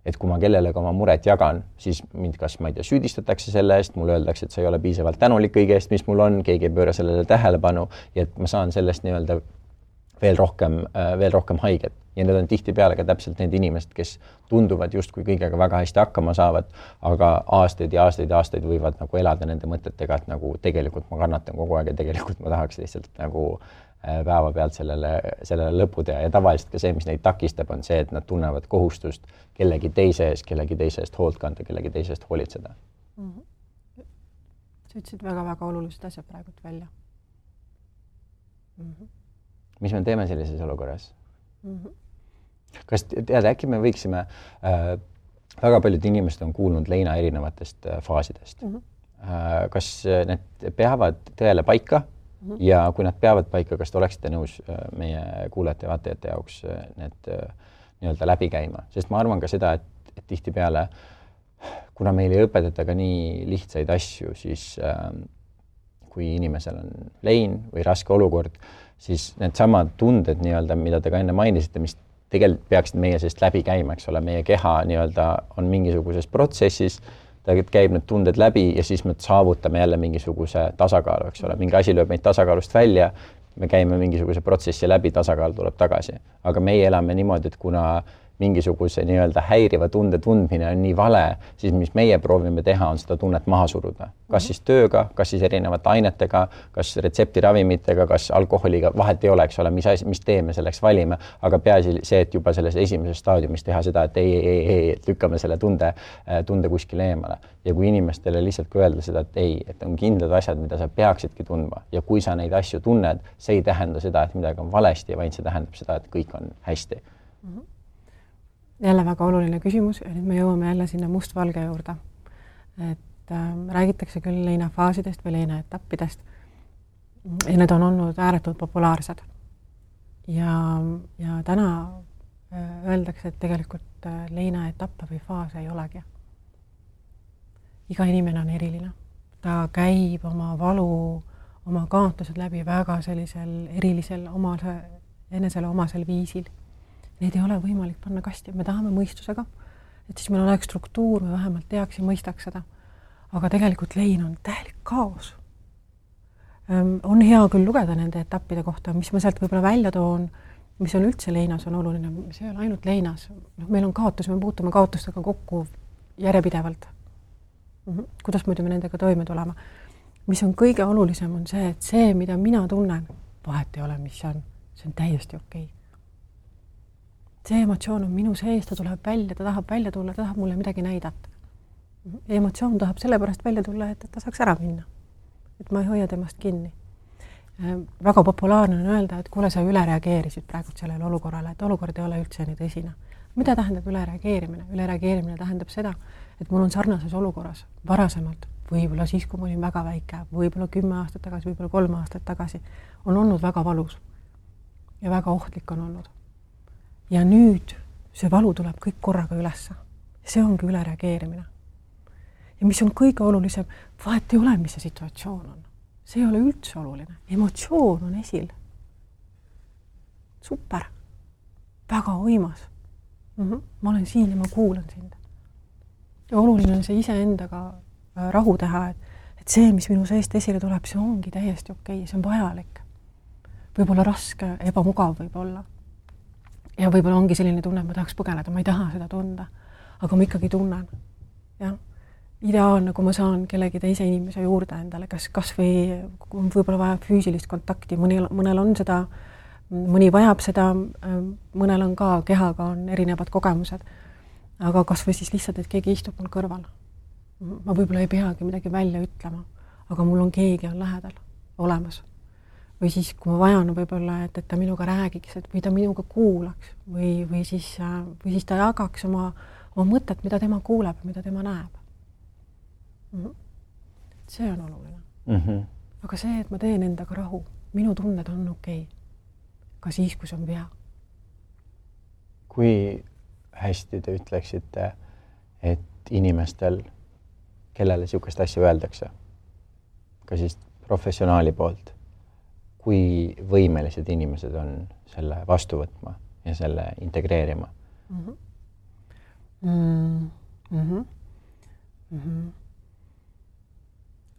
Speaker 1: et kui ma kellelegi oma muret jagan, siis mind kas, ma ei tea, süüdistatakse selle eest, mulle öeldakse, et sa ei ole piisavalt tänulik kõige eest, mis mul on, keegi ei pööra sellele tähelepanu ja et ma saan sellest nii-öelda veel rohkem haiget. Ja need on tihtipeale ka täpselt need inimesed, kes tunduvad justkui kõigega väga hästi hakkama saavad, aga aastaid ja aastaid võivad nagu elada nende mõtetega, et nagu tegelikult ma kannatan kogu aeg ja tegelikult ma tahaks lihtsalt nagu päeva pealt sellele lõpu teha ja tavaliselt ka see, mis neid takistab, on see, et nad tunnevad kohustust kellegi teise eest hoolt kanda, kellegi teise eest hoolitseda.
Speaker 2: Sa ütlesid väga-väga olulised asjad praegult välja.
Speaker 1: Mis me teeme sellises olukorras? Kas tead, äkki me võiksime, väga paljud inimesed on kuulnud leina erinevatest faasidest. Kas need peavad tõele paika? Ja kui nad peavad paika, kas te oleksite nõus meie kuulajate ja vaatajate jaoks need nii-öelda läbi käima? Sest ma arvan ka seda, et et tihtipeale, kuna meil ei õpetata ka nii lihtsaid asju, siis kui inimesel on lein või raske olukord, siis need samad tunded nii-öelda, mida te ka enne mainisite, mis tegelikult peaksid meie seest läbi käima, eks ole, meie keha nii-öelda on mingisuguses protsessis, ta käib need tunded läbi ja siis me saavutame jälle mingisuguse tasakaalu, eks ole, mingi asi lööb meid tasakaalust välja, me käime mingisuguse protsessi läbi, tasakaal tuleb tagasi. Aga meie elame niimoodi, et kuna mingisuguse nii-öelda häiriva tunde tundmine on nii vale, siis mis meie proovime teha, on seda tunnet maha suruda. Kas siis tööga, kas siis erinevate ainetega, kas retseptiravimitega, kas alkoholiga, vahet ei ole, eks ole, mis tee me selleks valime, aga peaasi see, et juba selles esimeses staadiumis teha seda, et ei, lükkame selle tunde kuskile eemale. Ja kui inimestele lihtsalt kui öelda seda, et ei, et on kindlad asjad, mida sa peaksidki tundma ja kui sa neid asju tunned, see ei tähenda seda, et midagi on valesti, vaid see tähendab seda, et kõik on hästi.
Speaker 2: Jälle väga oluline küsimus ja nüüd me jõuame jälle sinna mustvalge juurde. Et räägitakse küll leinafaasidest või leinaetappidest ja need on olnud ääretult populaarsed. Ja täna öeldakse, et tegelikult leinaetappe või faase ei olegi. Iga inimene on eriline. Ta käib oma valu, oma kaotused läbi väga sellisel erilisel enesele omasel viisil. Neid ei ole võimalik panna kasti, me tahame mõistusega, et siis meil oleks struktuur, me vähemalt teaks ja mõistaks seda. Aga tegelikult lein on täielik kaos. On hea küll lugeda nende etappide kohta, mis ma sealt võib-olla välja toon, mis on üldse leinas on oluline, see ei ole ainult leinas. Meil on kaotus, me puutume kaotustega kokku järjepidevalt. Kuidas muidu me nendega toime tulema? Mis on kõige olulisem on see, et see, mida mina tunnen, vahet ei ole, mis see on täiesti okei. See emotsioon on minu sees, ta tuleb välja, ta tahab välja tulla, ta tahab mulle midagi näidata. Emotsioon tahab sellepärast välja tulla, et ta saaks ära minna. Et ma ei hoia temast kinni. Väga populaarne on öelda, et kuule, sa üle reageerisid praegu sellele olukorrale, et olukord ei ole üldse nii tõsine. Mida tähendab üle reageerimine? Üle reageerimine tähendab seda, et mul on sarnases olukorras varasemalt, võib-olla siis, kui ma olin väga väike, võib-olla 10 aastat tagasi, võib-olla 3 aastat tagasi, on olnud väga valus ja väga ohtlik on olnud. Ja nüüd see valu tuleb kõik korraga ülesse. See ongi üle reageerimine. Ja mis on kõige olulisem, vahet ei ole, mis see situatsioon on. See ei ole üldse oluline. Emotsioon on esil. Super. Väga võimas. Ma olen siin ja ma kuulan sind. Ja oluline on see iseendaga rahu teha, et see, mis minu seest esile tuleb, see ongi täiesti okei, see on vajalik. Võib-olla raske, ebamugav võib-olla. Ja võib-olla ongi selline tunne, et ma tahaks põgeneda, ma ei taha seda tunda, aga ma ikkagi tunnen. Ja? Ideaalne, kui ma saan kellegi teise inimese juurde endale, kas või võib-olla vajab füüsilist kontakti, mõnel on seda, mõni vajab seda, mõnel on ka, kehaga on erinevad kogemused, aga kas või siis lihtsalt, et keegi istub mul kõrval. Ma võib-olla ei peagi midagi välja ütlema, aga mul on keegi on lähedal olemas. Või siis, kui ma vajan võib-olla, et ta minuga räägiks, või ta minuga kuulaks, või siis ta jagaks oma mõtet, mida tema kuuleb, mida tema näeb. See on oluline. Aga see, et ma teen endaga rahu, minu tunned on okei. Ka siis, kui see on vea.
Speaker 1: Kui hästi te ütleksite, et inimestel, kellele niisugust asja öeldakse, ka siis professionaali poolt, kui võimelised inimesed on selle vastu võtma ja selle integreerima?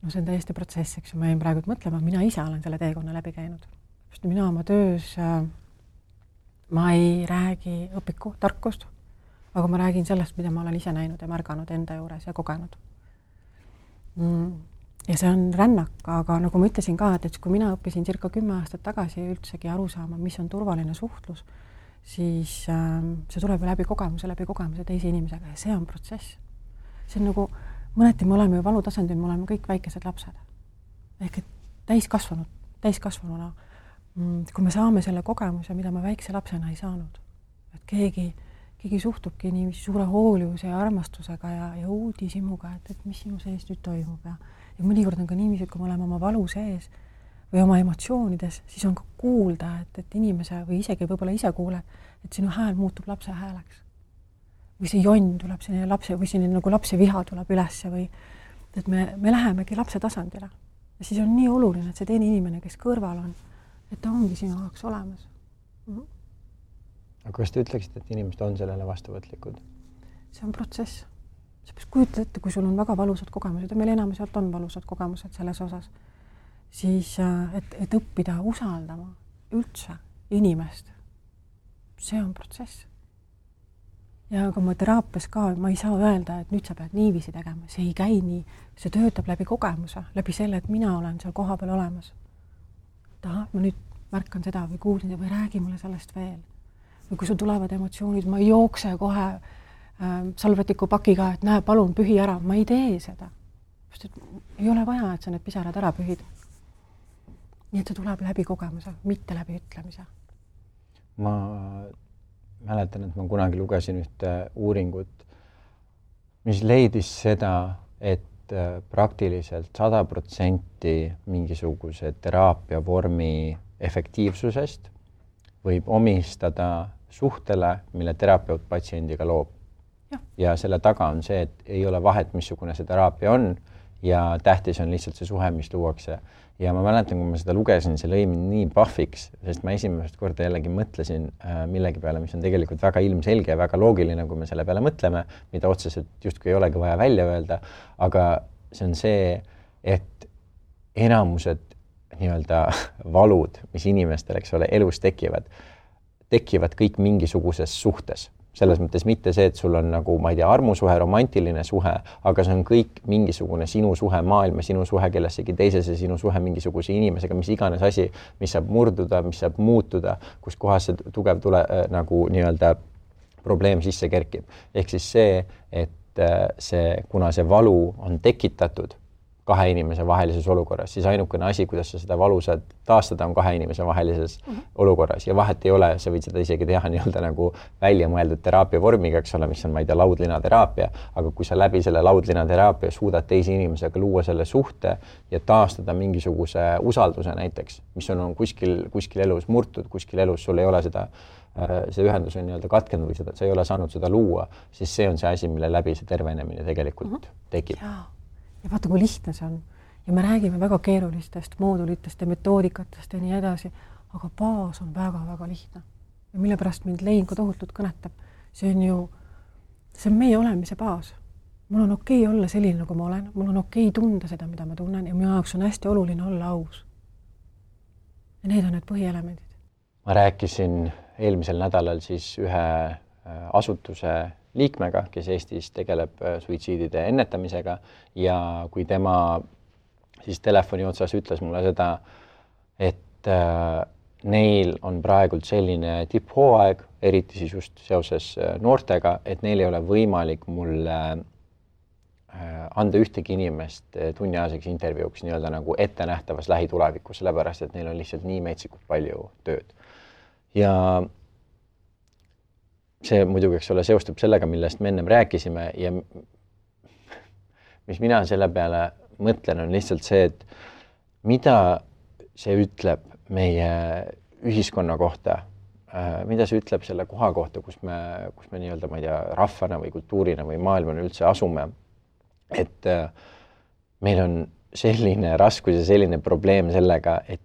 Speaker 2: No see on täiesti protsess, eks ma jäin praegu mõtlema, mina ise olen selle teekonna läbi käinud. Mina oma töös, ma ei räägi õpiku tarkust, aga ma räägin sellest, mida ma olen ise näinud ja märganud enda juures ja kogenud. Ja see on rännak, aga nagu ma ütlesin ka, et kui mina õppisin circa 10 aastat tagasi üldsegi aru saama, mis on turvaline suhtlus, siis see tuleb läbi kogemuse teise inimesega ja see on protsess. See on nagu, mõneti me oleme ju valutasandil, me oleme kõik väikesed lapsed. Ehk et täiskasvanuna, kui me saame selle kogemuse, mida me väikse lapsena ei saanud, et keegi suhtubki nii suure hoolivuse ja armastusega ja uudishimuga, et mis sinu sees nüüd toimub ja mõnikord on ka niiviisi, kui me oleme oma valu sees või oma emotsioonides, siis on ka kuulda, et inimese või isegi võib-olla ise kuule, et sinu hääl muutub lapse hääleks. või see jonn tuleb selline lapse või selline nagu lapse viha tuleb ülesse või et me lähemegi lapse tasandile. Ja siis on nii oluline, et see teine inimene, kes kõrval on, et ta ongi sinu jaoks olemas.
Speaker 1: Aga kas te ütleksite, et inimesed on sellele vastuvõtlikud?
Speaker 2: See on protsess. Sa peaks kujutada ette, kui sul on väga valusad kogemused ja meil enamiselt on valusad kogemused selles osas, siis et õppida usaldama üldse inimest, see on protsess. Ja kui ma teraapias ka, ma ei saa öelda, et nüüd sa pead niiviisi tegema, see ei käi nii, see töötab läbi kogemuse, läbi selle, et mina olen seal koha peal olemas. Ma nüüd märkan seda või kuulsin või räägi mulle sellest veel. Või kui sul tulevad emotsioonid, ma ei jookse kohe salvetiku pakiga, et näe, palun pühi ära, ma ei tee seda. Sest ei ole vaja, et sa need pisarad ära pühid. Nii et see tuleb läbi kogemuse, mitte läbi ütlemise.
Speaker 1: Ma mäletan, et ma kunagi lugesin ühte uuringut, mis leidis seda, et praktiliselt 100% mingisuguse teraapia vormi efektiivsusest võib omistada suhtele, mille terapeut patsiendiga loob. Ja selle taga on see, et ei ole vahet, missugune see teraapia on ja tähtis on lihtsalt see suhe, mis luuakse. Ja ma mäletan, kui ma seda lugesin, see lõi mind nii pahviks, sest ma esimest korda jällegi mõtlesin millegi peale, mis on tegelikult väga ilmselge ja väga loogiline, kui me selle peale mõtleme, mida otseselt justkui ei olegi vaja välja öelda, aga see on see, et enamused nii-öelda valud, mis inimestel, eks ole, elus tekivad kõik mingisuguses suhtes. Selles mõttes mitte see, et sul on nagu, ma ei tea, armusuhe, romantiline suhe, aga see on kõik mingisugune sinu suhe maailma, sinu suhe kellessegi teisese, sinu suhe mingisuguse inimesega, mis iganes asi, mis saab murduda, mis saab muutuda, kus kohas see tugev nagu nii-öelda probleem sisse kerkib. Ehk siis see, et kuna see valu on tekitatud kahe inimese vahelises olukorras, siis ainukene asi, kuidas sa seda valu saad taastada, on kahe inimese vahelises olukorras. Ja vahet ei ole, sa võid seda isegi teha nii-öelda nagu välja mõeldud teraapia vormiga, eks ole, mis on, ma ei tea, laudlinateraapia, aga kui sa läbi selle laudlinateraapia suudad teise inimesega luua selle suhte ja taastada mingisuguse usalduse näiteks, mis on kuskil elus murtud, kuskil elus sul ei ole seda, see ühendus on nii-öelda katkenud või sa ei ole saanud seda luua, siis see on see asi, mille läbi see tervenemine tegelikult tekib.
Speaker 2: Ja vaata, kui lihtne see on. Ja me räägime väga keerulistest moodulitest ja metoodikatest ja nii edasi, aga baas on väga-väga lihtne. Ja mille pärast mind Lein ka tohutult kõnetab, see on meie olemise baas. Mul on okei olla selline, nagu ma olen, mul on okei tunda seda, mida ma tunnen ja minu jaoks on hästi oluline olla aus. Ja need on need põhielemendid.
Speaker 1: Ma rääkisin eelmisel nädalal siis ühe asutuse liikmega, kes Eestis tegeleb suitsiidide ennetamisega ja kui tema siis telefoni otsas ütles mulle seda, et neil on praegult selline tipphooaeg, eriti siis just seoses noortega, et neil ei ole võimalik mulle anda ühtegi inimest tunniajaseks intervjuuks nii-öelda nagu ettenähtavas lähitulevikus, sellepärast, et neil on lihtsalt nii metsikult palju tööd. Ja see muidugi, eks ole, seostub sellega, millest me ennem rääkisime ja mis mina selle peale mõtlen, on lihtsalt see, et mida see ütleb meie ühiskonna kohta, mida see ütleb selle koha kohta, kus me nii-öelda, ma ei tea, rahvana või kultuurina või maailmana üldse asume, et meil on selline raskus ja selline probleem sellega, et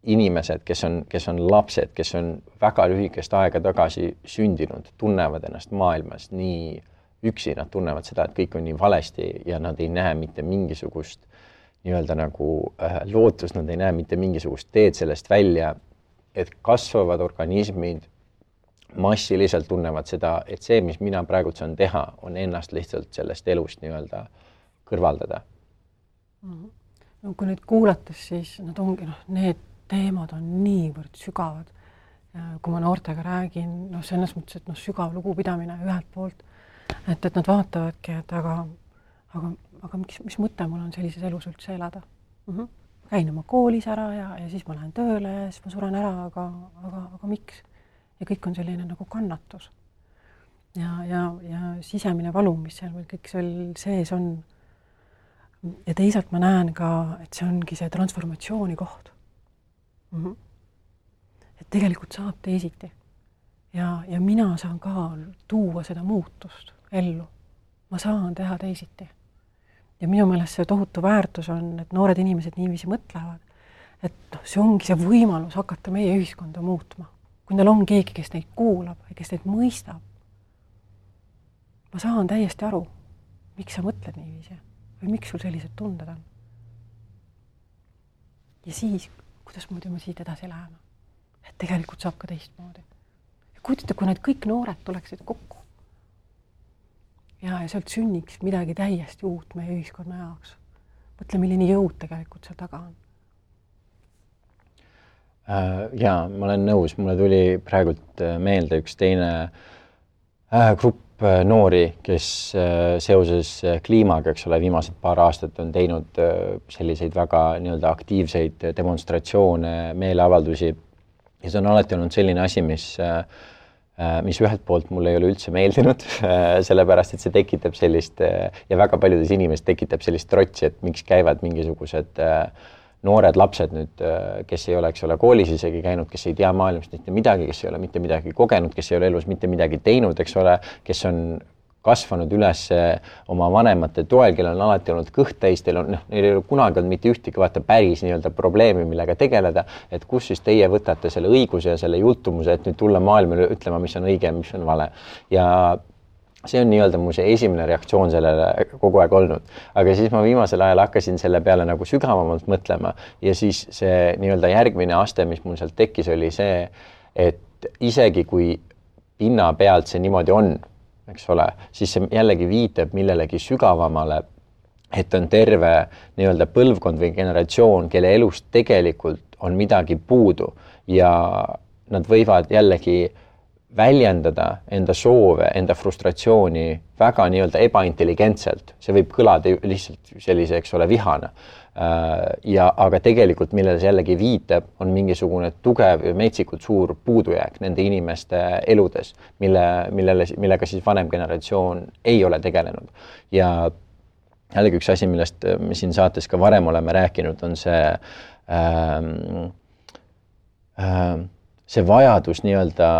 Speaker 1: inimesed, kes on lapsed, kes on väga lühikest aega tagasi sündinud, tunnevad ennast maailmas nii üksi, nad tunnevad seda, et kõik on nii valesti ja nad ei näe mitte mingisugust nii-öelda nagu lootust, nad ei näe mitte mingisugust teed sellest välja, et kasvavad organismid massiliselt tunnevad seda, et see, mis mina praegu saan teha, on ennast lihtsalt sellest elust nii-öelda kõrvaldada.
Speaker 2: No, kui nüüd kuulates, siis nad ongi, need teemad on niivõrd sügavad. Kui ma noortega räägin, selles mõttes, et sügav lugupidamine ühelt poolt, et nad vaatavadki, et aga mis mõte mul on sellises elus üldse elada? Käin oma koolis ära ja siis ma lähen tööle ja siis ma suren ära, aga miks? Ja kõik on selline nagu kannatus. Ja sisemine valu, mis seal kõik seal sees on. Ja teisalt ma näen ka, et see ongi see transformatsiooni koht. Et tegelikult saab teisiti. ja mina saan ka tuua seda muutust ellu. Ma saan teha teisiti. Ja minu meelest see tohutu väärtus on, et noored inimesed niiviisi mõtlevad, et see ongi see võimalus hakata meie ühiskonda muutma. Kui neil on keegi, kes neid kuulab ja kes neid mõistab, ma saan täiesti aru, miks sa mõtled niiviisi või miks sul sellised tunded on. Ja siis, kuidas muidu me siit edasi läheme? Et tegelikult saab ka teistmoodi. Ja kujutate, kui need kõik noored tuleksid kokku ja sealt sünniks midagi täiesti uut meie ühiskonna jaoks. Mõtle, milline jõud tegelikult seal taga on.
Speaker 1: Jaa, ma olen nõus. Mulle tuli praegult meelde üks teine grupp noori, kes seoses kliimaga, eks ole, viimased paar aastat on teinud selliseid väga nii-öelda aktiivseid demonstratsioone, meeleavaldusi. Ja see on alati olnud selline asi, mis ühelt poolt mulle ei ole üldse meeldinud, sellepärast, et see tekitab sellist, ja väga paljudes inimesed tekitab sellist trotsi, et miks käivad mingisugused noored lapsed nüüd, kes ei ole, eks ole, koolis isegi käinud, kes ei tea maailmast mitte midagi, kes ei ole mitte midagi kogenud, kes ei ole elus mitte midagi teinud, eks ole, kes on kasvanud üles oma vanemate toel, kellel on alati olnud kõht täis, neil ei ole kunagi olnud mitte ühtegi päris nii-öelda probleemi, millega tegeleda, et kus siis teie võtate selle õiguse ja selle jultumuse, et nüüd tulla maailmale ütlema, mis on õige ja mis on vale. Ja see on nii-öelda mu see esimene reaktsioon sellele kogu aeg olnud. Aga siis ma viimasel ajal hakkasin selle peale nagu sügavamalt mõtlema ja siis see nii-öelda järgmine aste, mis mul sealt tekkis, oli see, et isegi kui pinna pealt see niimoodi on, eks ole, siis see jällegi viitab millelegi sügavamale, et on terve nii-öelda põlvkond või generatsioon, kelle elust tegelikult on midagi puudu ja nad võivad jällegi väljendada enda soove, enda frustratsiooni väga nii-öelda ebaintelligentselt. See võib kõlada lihtsalt sellise, eks ole, vihana. Aga tegelikult, millele see jällegi viitab, on mingisugune tugev ja metsikult suur puudujääk nende inimeste eludes, millega siis vanem generatsioon ei ole tegelenud. Ja jällegi üks asi, millest me siin saates ka varem oleme rääkinud, on see vajadus nii-öelda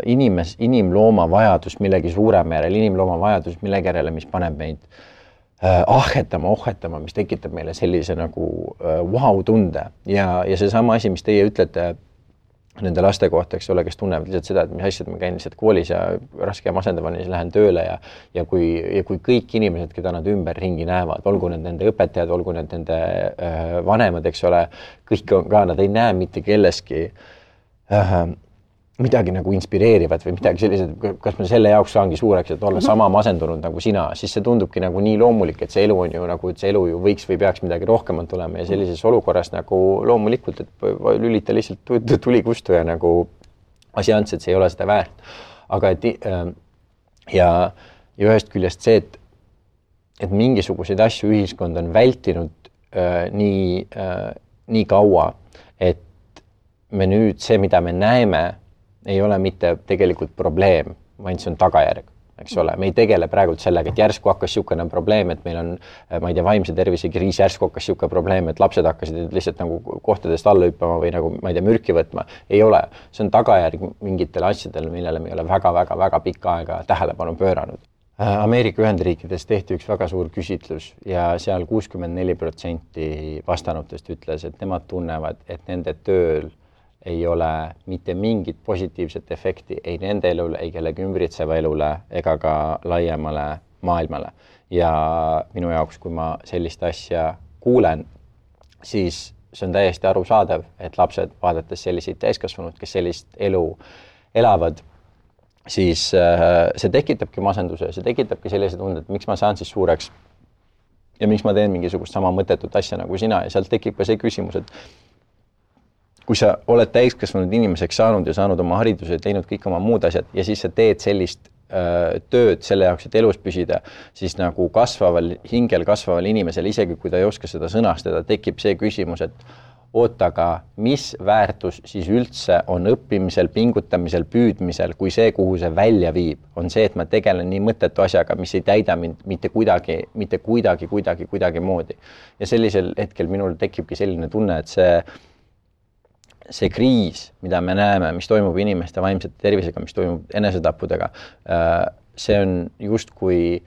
Speaker 1: inimlooma vajadus millegi suurema järel, inimlooma vajadus millegi järele, mis paneb meid ohhetama, mis tekitab meile sellise nagu wow-tunde. Ja see sama asi, mis teie ütlete nende laste kohta, eks ole, kes tunnevad lihtsalt seda, et mis asjad ma käin lihtsalt koolis ja raske ja masendavani, siis lähen tööle ja kui kõik inimesed, keda nad ümber ringi näevad, olgu need nende õpetajad, olgu need nende vanemad, eks ole, kõik on ka, nad ei näe mitte kelleski midagi nagu inspireerivat või midagi sellised, kas ma selle jaoks saangi suureks, et olla sama masendunud nagu sina, siis see tundubki nagu nii loomulik, et see elu on ju nagu, et see elu ju võiks või peaks midagi rohkemat olema ja sellises olukorras nagu loomulikult, et lülita lihtsalt tuli kustu ja nagu asjants, et see ei ole seda väärt. Aga ja ühest küljest see, et mingisuguseid asju ühiskond on vältinud nii kaua, et me nüüd see, mida me näeme, ei ole mitte tegelikult probleem, vaid see on tagajärg, eks ole. Me ei tegele praegult sellega, et järsku hakkas siukene probleem, et meil on, ma ei tea, vaimse tervise kriis, järsku hakkas siuke probleem, et lapsed hakkasid lihtsalt nagu kohtadest alla hüppama või nagu, ma ei tea, mürki võtma. Ei ole. See on tagajärg mingitele asjadele, millele me ei ole väga pikka aega tähelepanu pööranud. Ameerika Ühendriikides tehti üks väga suur küsitlus ja seal 64% vastanutest ütles, et nemad tunnevad, et nende tööl ei ole mitte mingit positiivset efekti ei nende elule, ei kellegi ümbritseva elule ega ka laiemale maailmale. Ja minu jaoks, kui ma sellist asja kuulen, siis see on täiesti arusaadav, et lapsed, vaadates selliseid täiskasvanud, kes sellist elu elavad, siis see tekitabki masenduse, see tekitabki sellise tunde, et miks ma saan siis suureks ja miks ma teen mingisugust sama mõttetut asja nagu sina ja sealt tekib ka see küsimus, et kui sa oled täiskasvanud inimeseks saanud ja saanud oma hariduse ja teinud kõik oma muud asjad ja siis sa teed sellist tööd selle jaoks, et elus püsida, siis nagu hingel kasvaval inimesel, isegi kui ta ei oska seda sõnastada, tekib see küsimus, et aga mis väärtus siis üldse on õppimisel, pingutamisel, püüdmisel, kui see, kuhu see välja viib, on see, et ma tegelen nii mõttetu asjaga, mis ei täida mind mitte kuidagi moodi. Ja sellisel hetkel minul tekibki selline tunne, et see kriis, mida me näeme, mis toimub inimeste vaimsete tervisega, mis toimub enesetappudega, see on justkui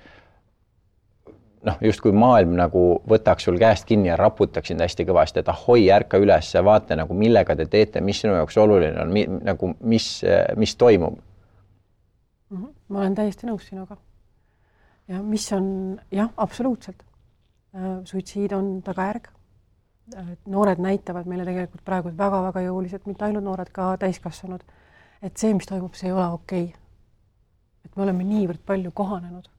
Speaker 1: maailm nagu võtaks sul käest kinni ja raputaks sind hästi kõvasti, et ahoi, ärka üles, vaata nagu millega te teete, mis sinu jaoks oluline on, nagu mis toimub.
Speaker 2: Ma olen täiesti nõus sinuga. Ja mis on, jah, absoluutselt. Suitsiid on tagajärg. Noored näitavad meile tegelikult praegu väga-väga jõuliselt, mitte ainult noored, ka täiskasvanud, et see, mis toimub, see ei ole okei. Et me oleme niivõrd palju kohanenud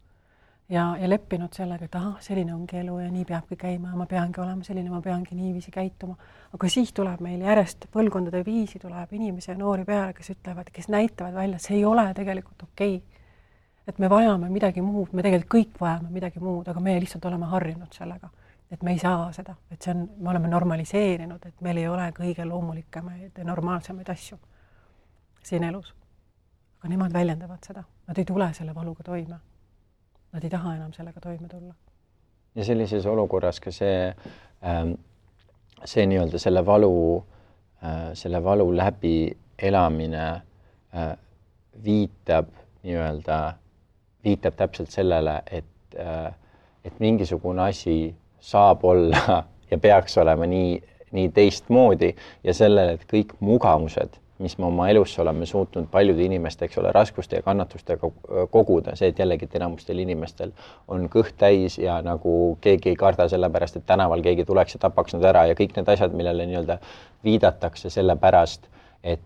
Speaker 2: ja leppinud sellega, et selline ongi elu ja nii peabki käima ja ma peangi olema selline, ma peangi niiviisi käituma. Aga siis tuleb meil järjest põlvkondade viisi, tuleb inimesi ja noori peale, kes ütlevad, kes näitavad välja, see ei ole tegelikult okei. Et me vajame midagi muud, me tegelikult kõik vajame midagi muud, aga me lihtsalt oleme harjunud sellega. Et me ei saa seda, et see on, me oleme normaliseerinud, et meil ei ole kõige loomulikemaid ja normaalsemaid asju siin elus. Aga nemad väljendavad seda. Nad ei tule selle valuga toime. Nad ei taha enam sellega toime tulla.
Speaker 1: Ja sellises olukorras ka see nii-öelda selle valu läbi elamine viitab täpselt sellele, et mingisugune asi saab olla ja peaks olema nii teistmoodi ja sellele, et kõik mugavused, mis me oma elus oleme suutnud paljude inimeste, eks ole, raskuste ja kannatustega koguda, see, et jällegi enamustel inimestel on kõht täis ja nagu keegi ei karda sellepärast, et tänaval keegi tuleks ja tapaks nad ära ja kõik need asjad, millele nii-öelda viidatakse sellepärast, et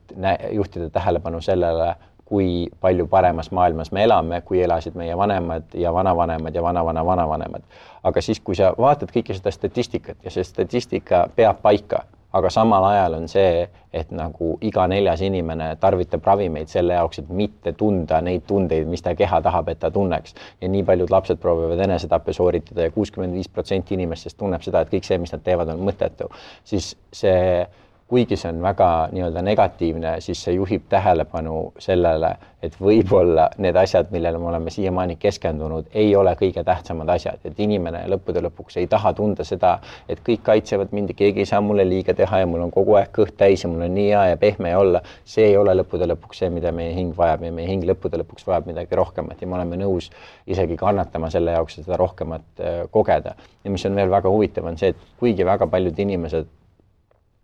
Speaker 1: juhtida tähelepanu sellele, kui palju paremas maailmas me elame, kui elasid meie vanemad ja vanavanemad ja vanavanemad. Aga siis, kui sa vaatad kõike seda statistikat ja see statistika peab paika, aga samal ajal on see, et nagu iga 4. inimene tarvitab ravimeid selle jaoks, et mitte tunda neid tundeid, mis ta keha tahab, et ta tunneks. Ja nii paljud lapsed proovivad enesetappe sooritada ja 65% inimestest tunneb seda, et kõik see, mis nad teevad, on mõttetu. Siis see, kuigi see on väga nii-öelda negatiivne, siis see juhib tähelepanu sellele, et võib-olla need asjad, millele me oleme siiamaani keskendunud, ei ole kõige tähtsamad asjad. Et inimene lõppude lõpuks ei taha tunda seda, et kõik kaitsevad mind ja keegi ei saa mulle liiga teha ja mul on kogu aeg kõht täis ja mul on nii hea ja pehme olla. See ei ole lõppude lõpuks see, mida meie hing vajab ja meie hing lõppude lõpuks vajab midagi rohkemat ja me oleme nõus isegi kannatama selle jaoks, et seda rohkemat kogeda. Ja mis on veel väga huvitav, on see, et kuigi väga paljud inimesed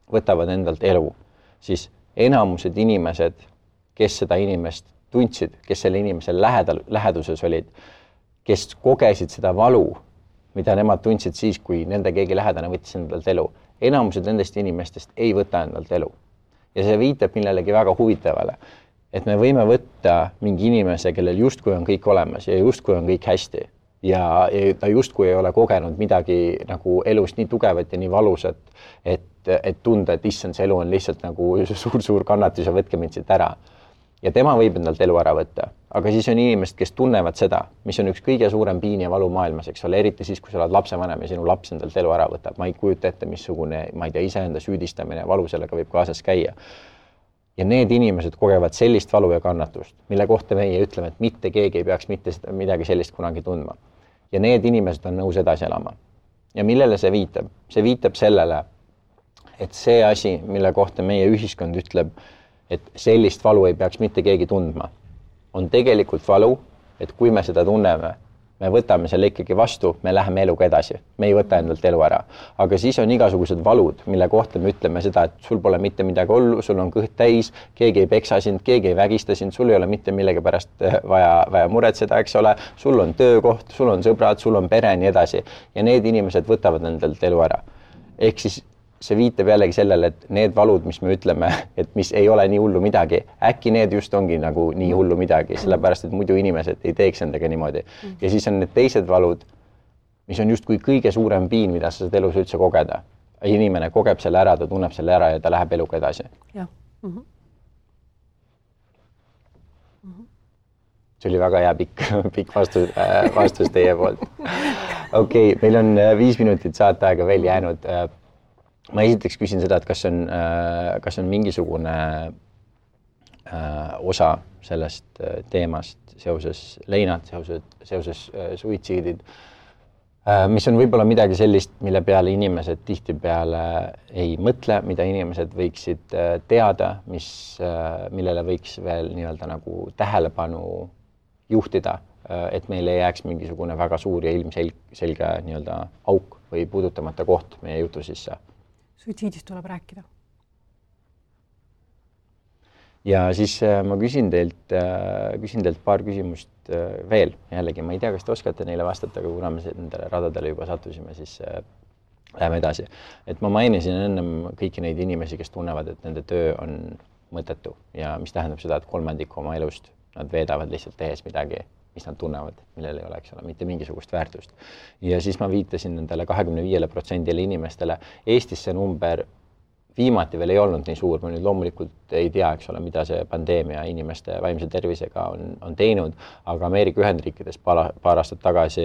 Speaker 1: võtavad endalt elu, siis enamused inimesed, kes seda inimest tundsid, kes selle inimese läheduses olid, kes kogesid seda valu, mida nemad tundsid siis, kui nende keegi lähedane võttis endalt elu. Enamused nendest inimestest ei võta endalt elu. Ja see viitab millelegi väga huvitavale, et me võime võtta mingi inimese, kellel justkui on kõik olemas ja justkui on kõik hästi. Ja ta justkui ei ole kogenud midagi nagu elust nii tugevat ja nii valusat, et tunda, et issand, see elu on lihtsalt nagu suur kannatus ja võtke mind siit ära. Ja tema võib endalt elu ära võtta, aga siis on inimesed, kes tunnevad seda, mis on üks kõige suurem piin ja valu maailmas, eks ole, eriti siis, kui sa oled lapsevanem ja sinu laps endalt elu ära võtab. Ma ei kujuta ette, missugune, ma ei tea, iseenda süüdistamine ja valu sellega võib kaasas käia. Ja need inimesed kogevad sellist valu ja kannatust, mille kohta meie ütleme, et mitte keegi ei peaks mitte midagi sellist kunagi tundma. Ja need inimesed on nõus edasi elama. Ja millele see viitab? See viitab sellele, et see asi, mille kohta meie ühiskond ütleb, et sellist valu ei peaks mitte keegi tundma, on tegelikult valu, et kui me seda tunneme, me võtame selle ikkagi vastu, me läheme eluga edasi, me ei võta endalt elu ära. Aga siis on igasugused valud, mille kohta me ütleme seda, et sul pole mitte midagi ollu, sul on kõht täis, keegi ei peksa sind, keegi ei vägista sind, sul ei ole mitte millegi pärast vaja muretseda, eks ole, sul on töökoht, sul on sõbrad, sul on pere, nii edasi. Ja need inimesed võtavad endalt elu ära. Ehk siis see viitab jällegi sellele, et need valud, mis me ütleme, et mis ei ole nii hullu midagi, äkki need just ongi nagu nii hullu midagi, sellepärast, et muidu inimesed ei teeks endaga niimoodi. Ja siis on need teised valud, mis on justkui kõige suurem piin, mida sa saad elus üldse kogeda. Inimene kogeb selle ära, ta tunneb selle ära ja ta läheb eluga edasi.
Speaker 2: Jah.
Speaker 1: See oli väga hea pikk vastus teie poolt. Okei, meil on 5 minutit saateaega veel jäänud. Ma esiteks küsin seda, et kas on mingisugune osa sellest teemast seoses leinad, seoses suitsiidid, mis on võib-olla midagi sellist, mille peale inimesed tihtipeale ei mõtle, mida inimesed võiksid teada, millele võiks veel nii-öelda nagu tähelepanu juhtida, et meil ei jääks mingisugune väga suur ja ilmselge nii-öelda auk või puudutamata koht meie jutu sisse.
Speaker 2: Suitsiidist tuleb rääkida.
Speaker 1: Ja siis ma küsin teilt paar küsimust veel. Jällegi, ma ei tea, kas te oskate neile vastata, aga kuna me nendele radadele juba sattusime, siis läheme edasi. Et ma mainisin ennem kõiki neid inimesi, kes tunnevad, et nende töö on mõttetu ja mis tähendab seda, et 3% oma elust nad veedavad lihtsalt tehes midagi, mis nad tunnevad, millel ei oleks mitte mingisugust väärtust. Ja siis ma viitasin nendele 25% inimestele. Eestis see number viimati veel ei olnud nii suur, ma nüüd loomulikult ei tea, eks ole, mida see pandeemia inimeste vaimse tervisega on teinud, aga Ameerika Ühendriikides paar aastat tagasi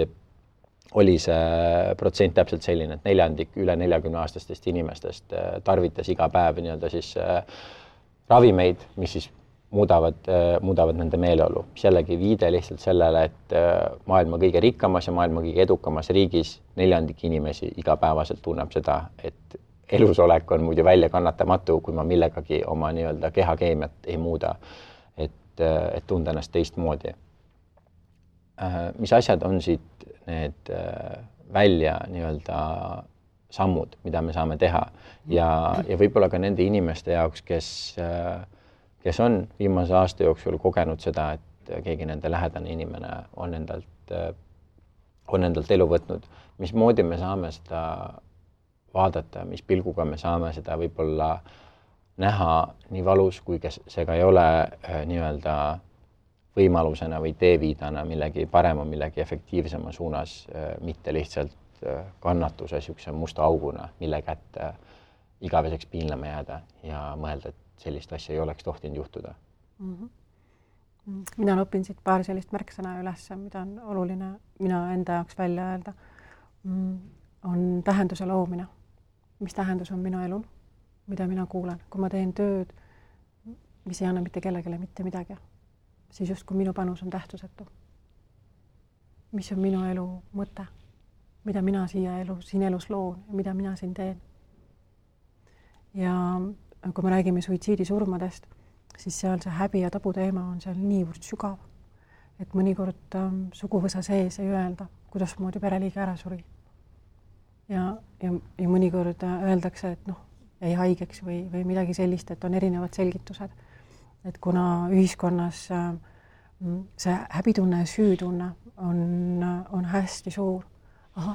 Speaker 1: oli see protsent täpselt selline, et 4% üle 40-aastastest inimestest tarvitas iga päev nii-öelda siis ravimeid, mis siis muudavad nende meeleolu. Mis jällegi viide lihtsalt sellele, et maailma kõige rikkamas ja maailma kõige edukamas riigis 4% inimesi igapäevaselt tunneb seda, et elusolek on muidu välja kannatamatu, kui ma millegagi oma nii-öelda kehakeemiat ei muuda, et tunda ennast teistmoodi. Mis asjad on siit need välja nii-öelda sammud, mida me saame teha ja võib-olla ka nende inimeste jaoks, kes on viimase aasta jooksul kogenud seda, et keegi nende lähedane inimene on endalt elu võtnud. Mismoodi me saame seda vaadata, mis pilguga me saame seda võib-olla näha nii valus, kui see ka ei ole nii-öelda võimalusena või teeviidana millegi parema, millegi efektiivsema suunas, mitte lihtsalt kannatuse sihukese musta auguna, mille kätte igaveseks piinlema jääda ja mõelda, et sellist asja ei oleks tohtinud juhtuda.
Speaker 2: Mina õpin siit paar sellist märksõna üles, mida on oluline mina enda jaoks välja öelda, on tähenduse loomine. Mis tähendus on minu elul, mida mina kuulen. Kui ma teen tööd, mis ei anna mitte kellegile mitte midagi, siis just kui minu panus on tähtsusetu. Mis on minu elu mõte, mida mina siin elus loon ja mida mina siin teen. Ja kui me räägime suitsiidisurmadest, siis seal see häbi ja tabu teema on seal niivõrd sügav, et mõnikord suguvõsa sees ei öelda, kuidas moodi pereliige ära suri. Ja mõnikord öeldakse, et jäi haigeks või midagi sellist, et on erinevad selgitused. Et kuna ühiskonnas see häbitunne ja süütunne on hästi suur,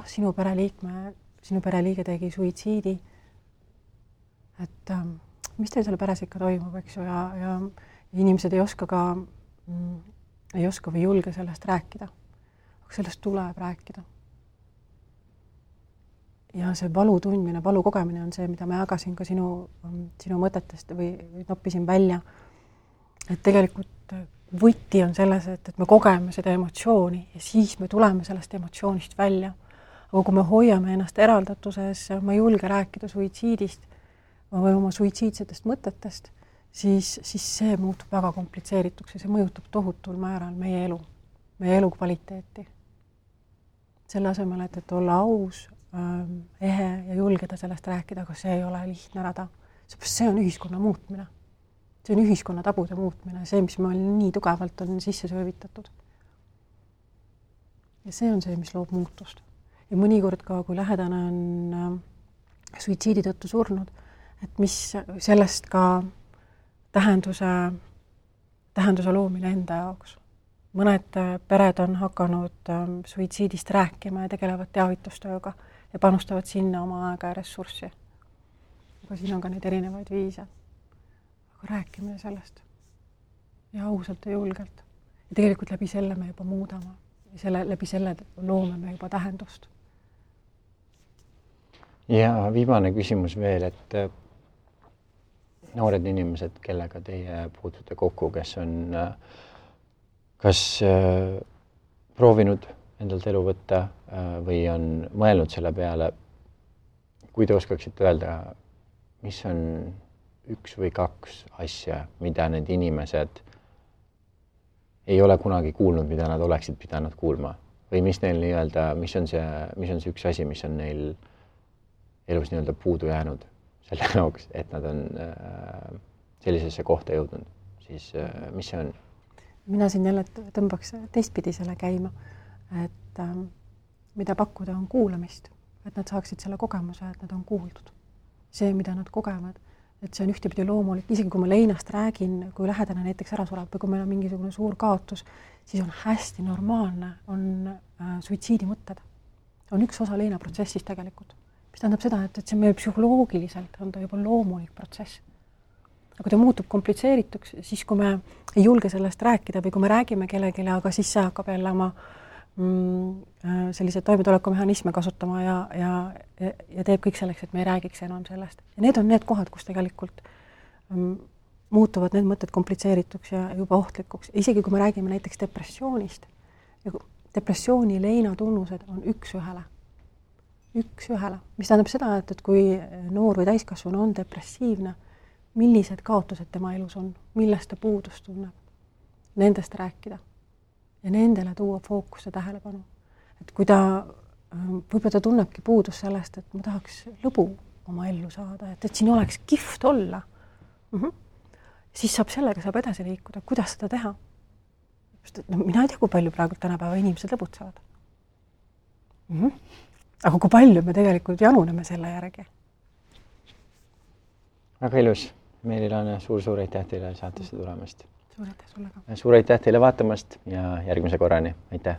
Speaker 2: sinu pereliige tegi suitsiidi, et mis teil selle peres ikka toimub, eks ju, ja inimesed ei oska või julge sellest rääkida, aga sellest tuleb rääkida. Ja see valu tundmine, valu kogemine on see, mida ma jagasin ka sinu mõtetest või noppisin välja. Et tegelikult võti on selles, et me kogeme seda emotsiooni ja siis me tuleme sellest emotsioonist välja. Aga kui me hoiame ennast eraldatuses, ma ei julge rääkida suitsiidist või oma suitsiidsetest mõtetest, siis see muutub väga komplitseerituks ja see mõjutab tohutul määral meie elu kvaliteeti. Selle asemel, et olla aus, ehe ja julgeda sellest rääkida, aga see ei ole lihtne rada. See on ühiskonna muutmine. See on ühiskonna tabude muutmine, see, mis meil nii tugevalt on sisse söövitatud. Ja see on see, mis loob muutust. Ja mõnikord ka, kui lähedane on suitsiidi tõttu surnud, et mis sellest ka tähenduse loomine enda jaoks. Mõned pered on hakanud suitsiidist rääkima ja tegelevad teavitustööga ja panustavad sinna oma aega ja ressurssi. Aga siin on ka neid erinevaid viise. Aga rääkimine sellest ja ausalt ja julgelt. Ja tegelikult läbi selle me juba muudame ja läbi selle loome me juba tähendust.
Speaker 1: Ja viimane küsimus veel, et noored inimesed, kellega teie puutute kokku, kes on kas proovinud endalt elu võtta või on mõelnud selle peale, kui te oskaksite öelda, mis on 1 või 2 asja, mida need inimesed ei ole kunagi kuulnud, mida nad oleksid pidanud kuulma või mis neil nii-öelda, mis on see üks asi, mis on neil elus nii-öelda puudu jäänud selle jaoks, et nad on sellisesse kohta jõudnud, siis mis see on?
Speaker 2: Mina siin jälle tõmbaks teistpidi selle käima, et mida pakkuda on kuulamist, et nad saaksid selle kogemuse, et nad on kuuldud. See, mida nad kogevad, et see on ühtepidi loomulik, isegi kui ma leinast räägin, kui lähedane näiteks ära sureb või kui meil on mingisugune suur kaotus, siis on hästi normaalne, on suitsiidimõtted. On üks osa leinaprotsessist tegelikult. Mis tähendab seda, et see meie psühholoogiliselt on ta juba loomulik protsess. Aga kui ta muutub komplitseerituks, siis kui me ei julge sellest rääkida või kui me räägime kellelegi, aga siis see hakkab jälle oma sellised toimetulekumehhanisme kasutama ja teeb kõik selleks, et me ei räägiks enam sellest. Ja need on need kohad, kus tegelikult muutuvad need mõtted komplitseerituks ja juba ohtlikuks. Isegi kui me räägime näiteks depressioonist, depressiooni leina tunnused on üks ühele, mis tähendab seda, et kui noor või täiskasvanu on depressiivne, millised kaotused tema elus on, millest ta puudust tunneb, nendest rääkida ja nendele tuua fookusse tähelepanu. Et kui võib-olla ta tunnebki puudust sellest, et ma tahaks lõbu oma ellu saada, et siin oleks kihvt olla, siis sellega saab edasi liikuda, kuidas seda teha. Mina ei tea, kui palju praegu tänapäeva inimesed lõbutsevad. Aga kui palju me tegelikult januneme selle järgi?
Speaker 1: Väga ilus. Meelilane, suur aitäh teile saatesse tulemast.
Speaker 2: Suur aitäh sulle ka.
Speaker 1: Suur aitäh teile vaatamast ja järgmise korrani. Aitäh!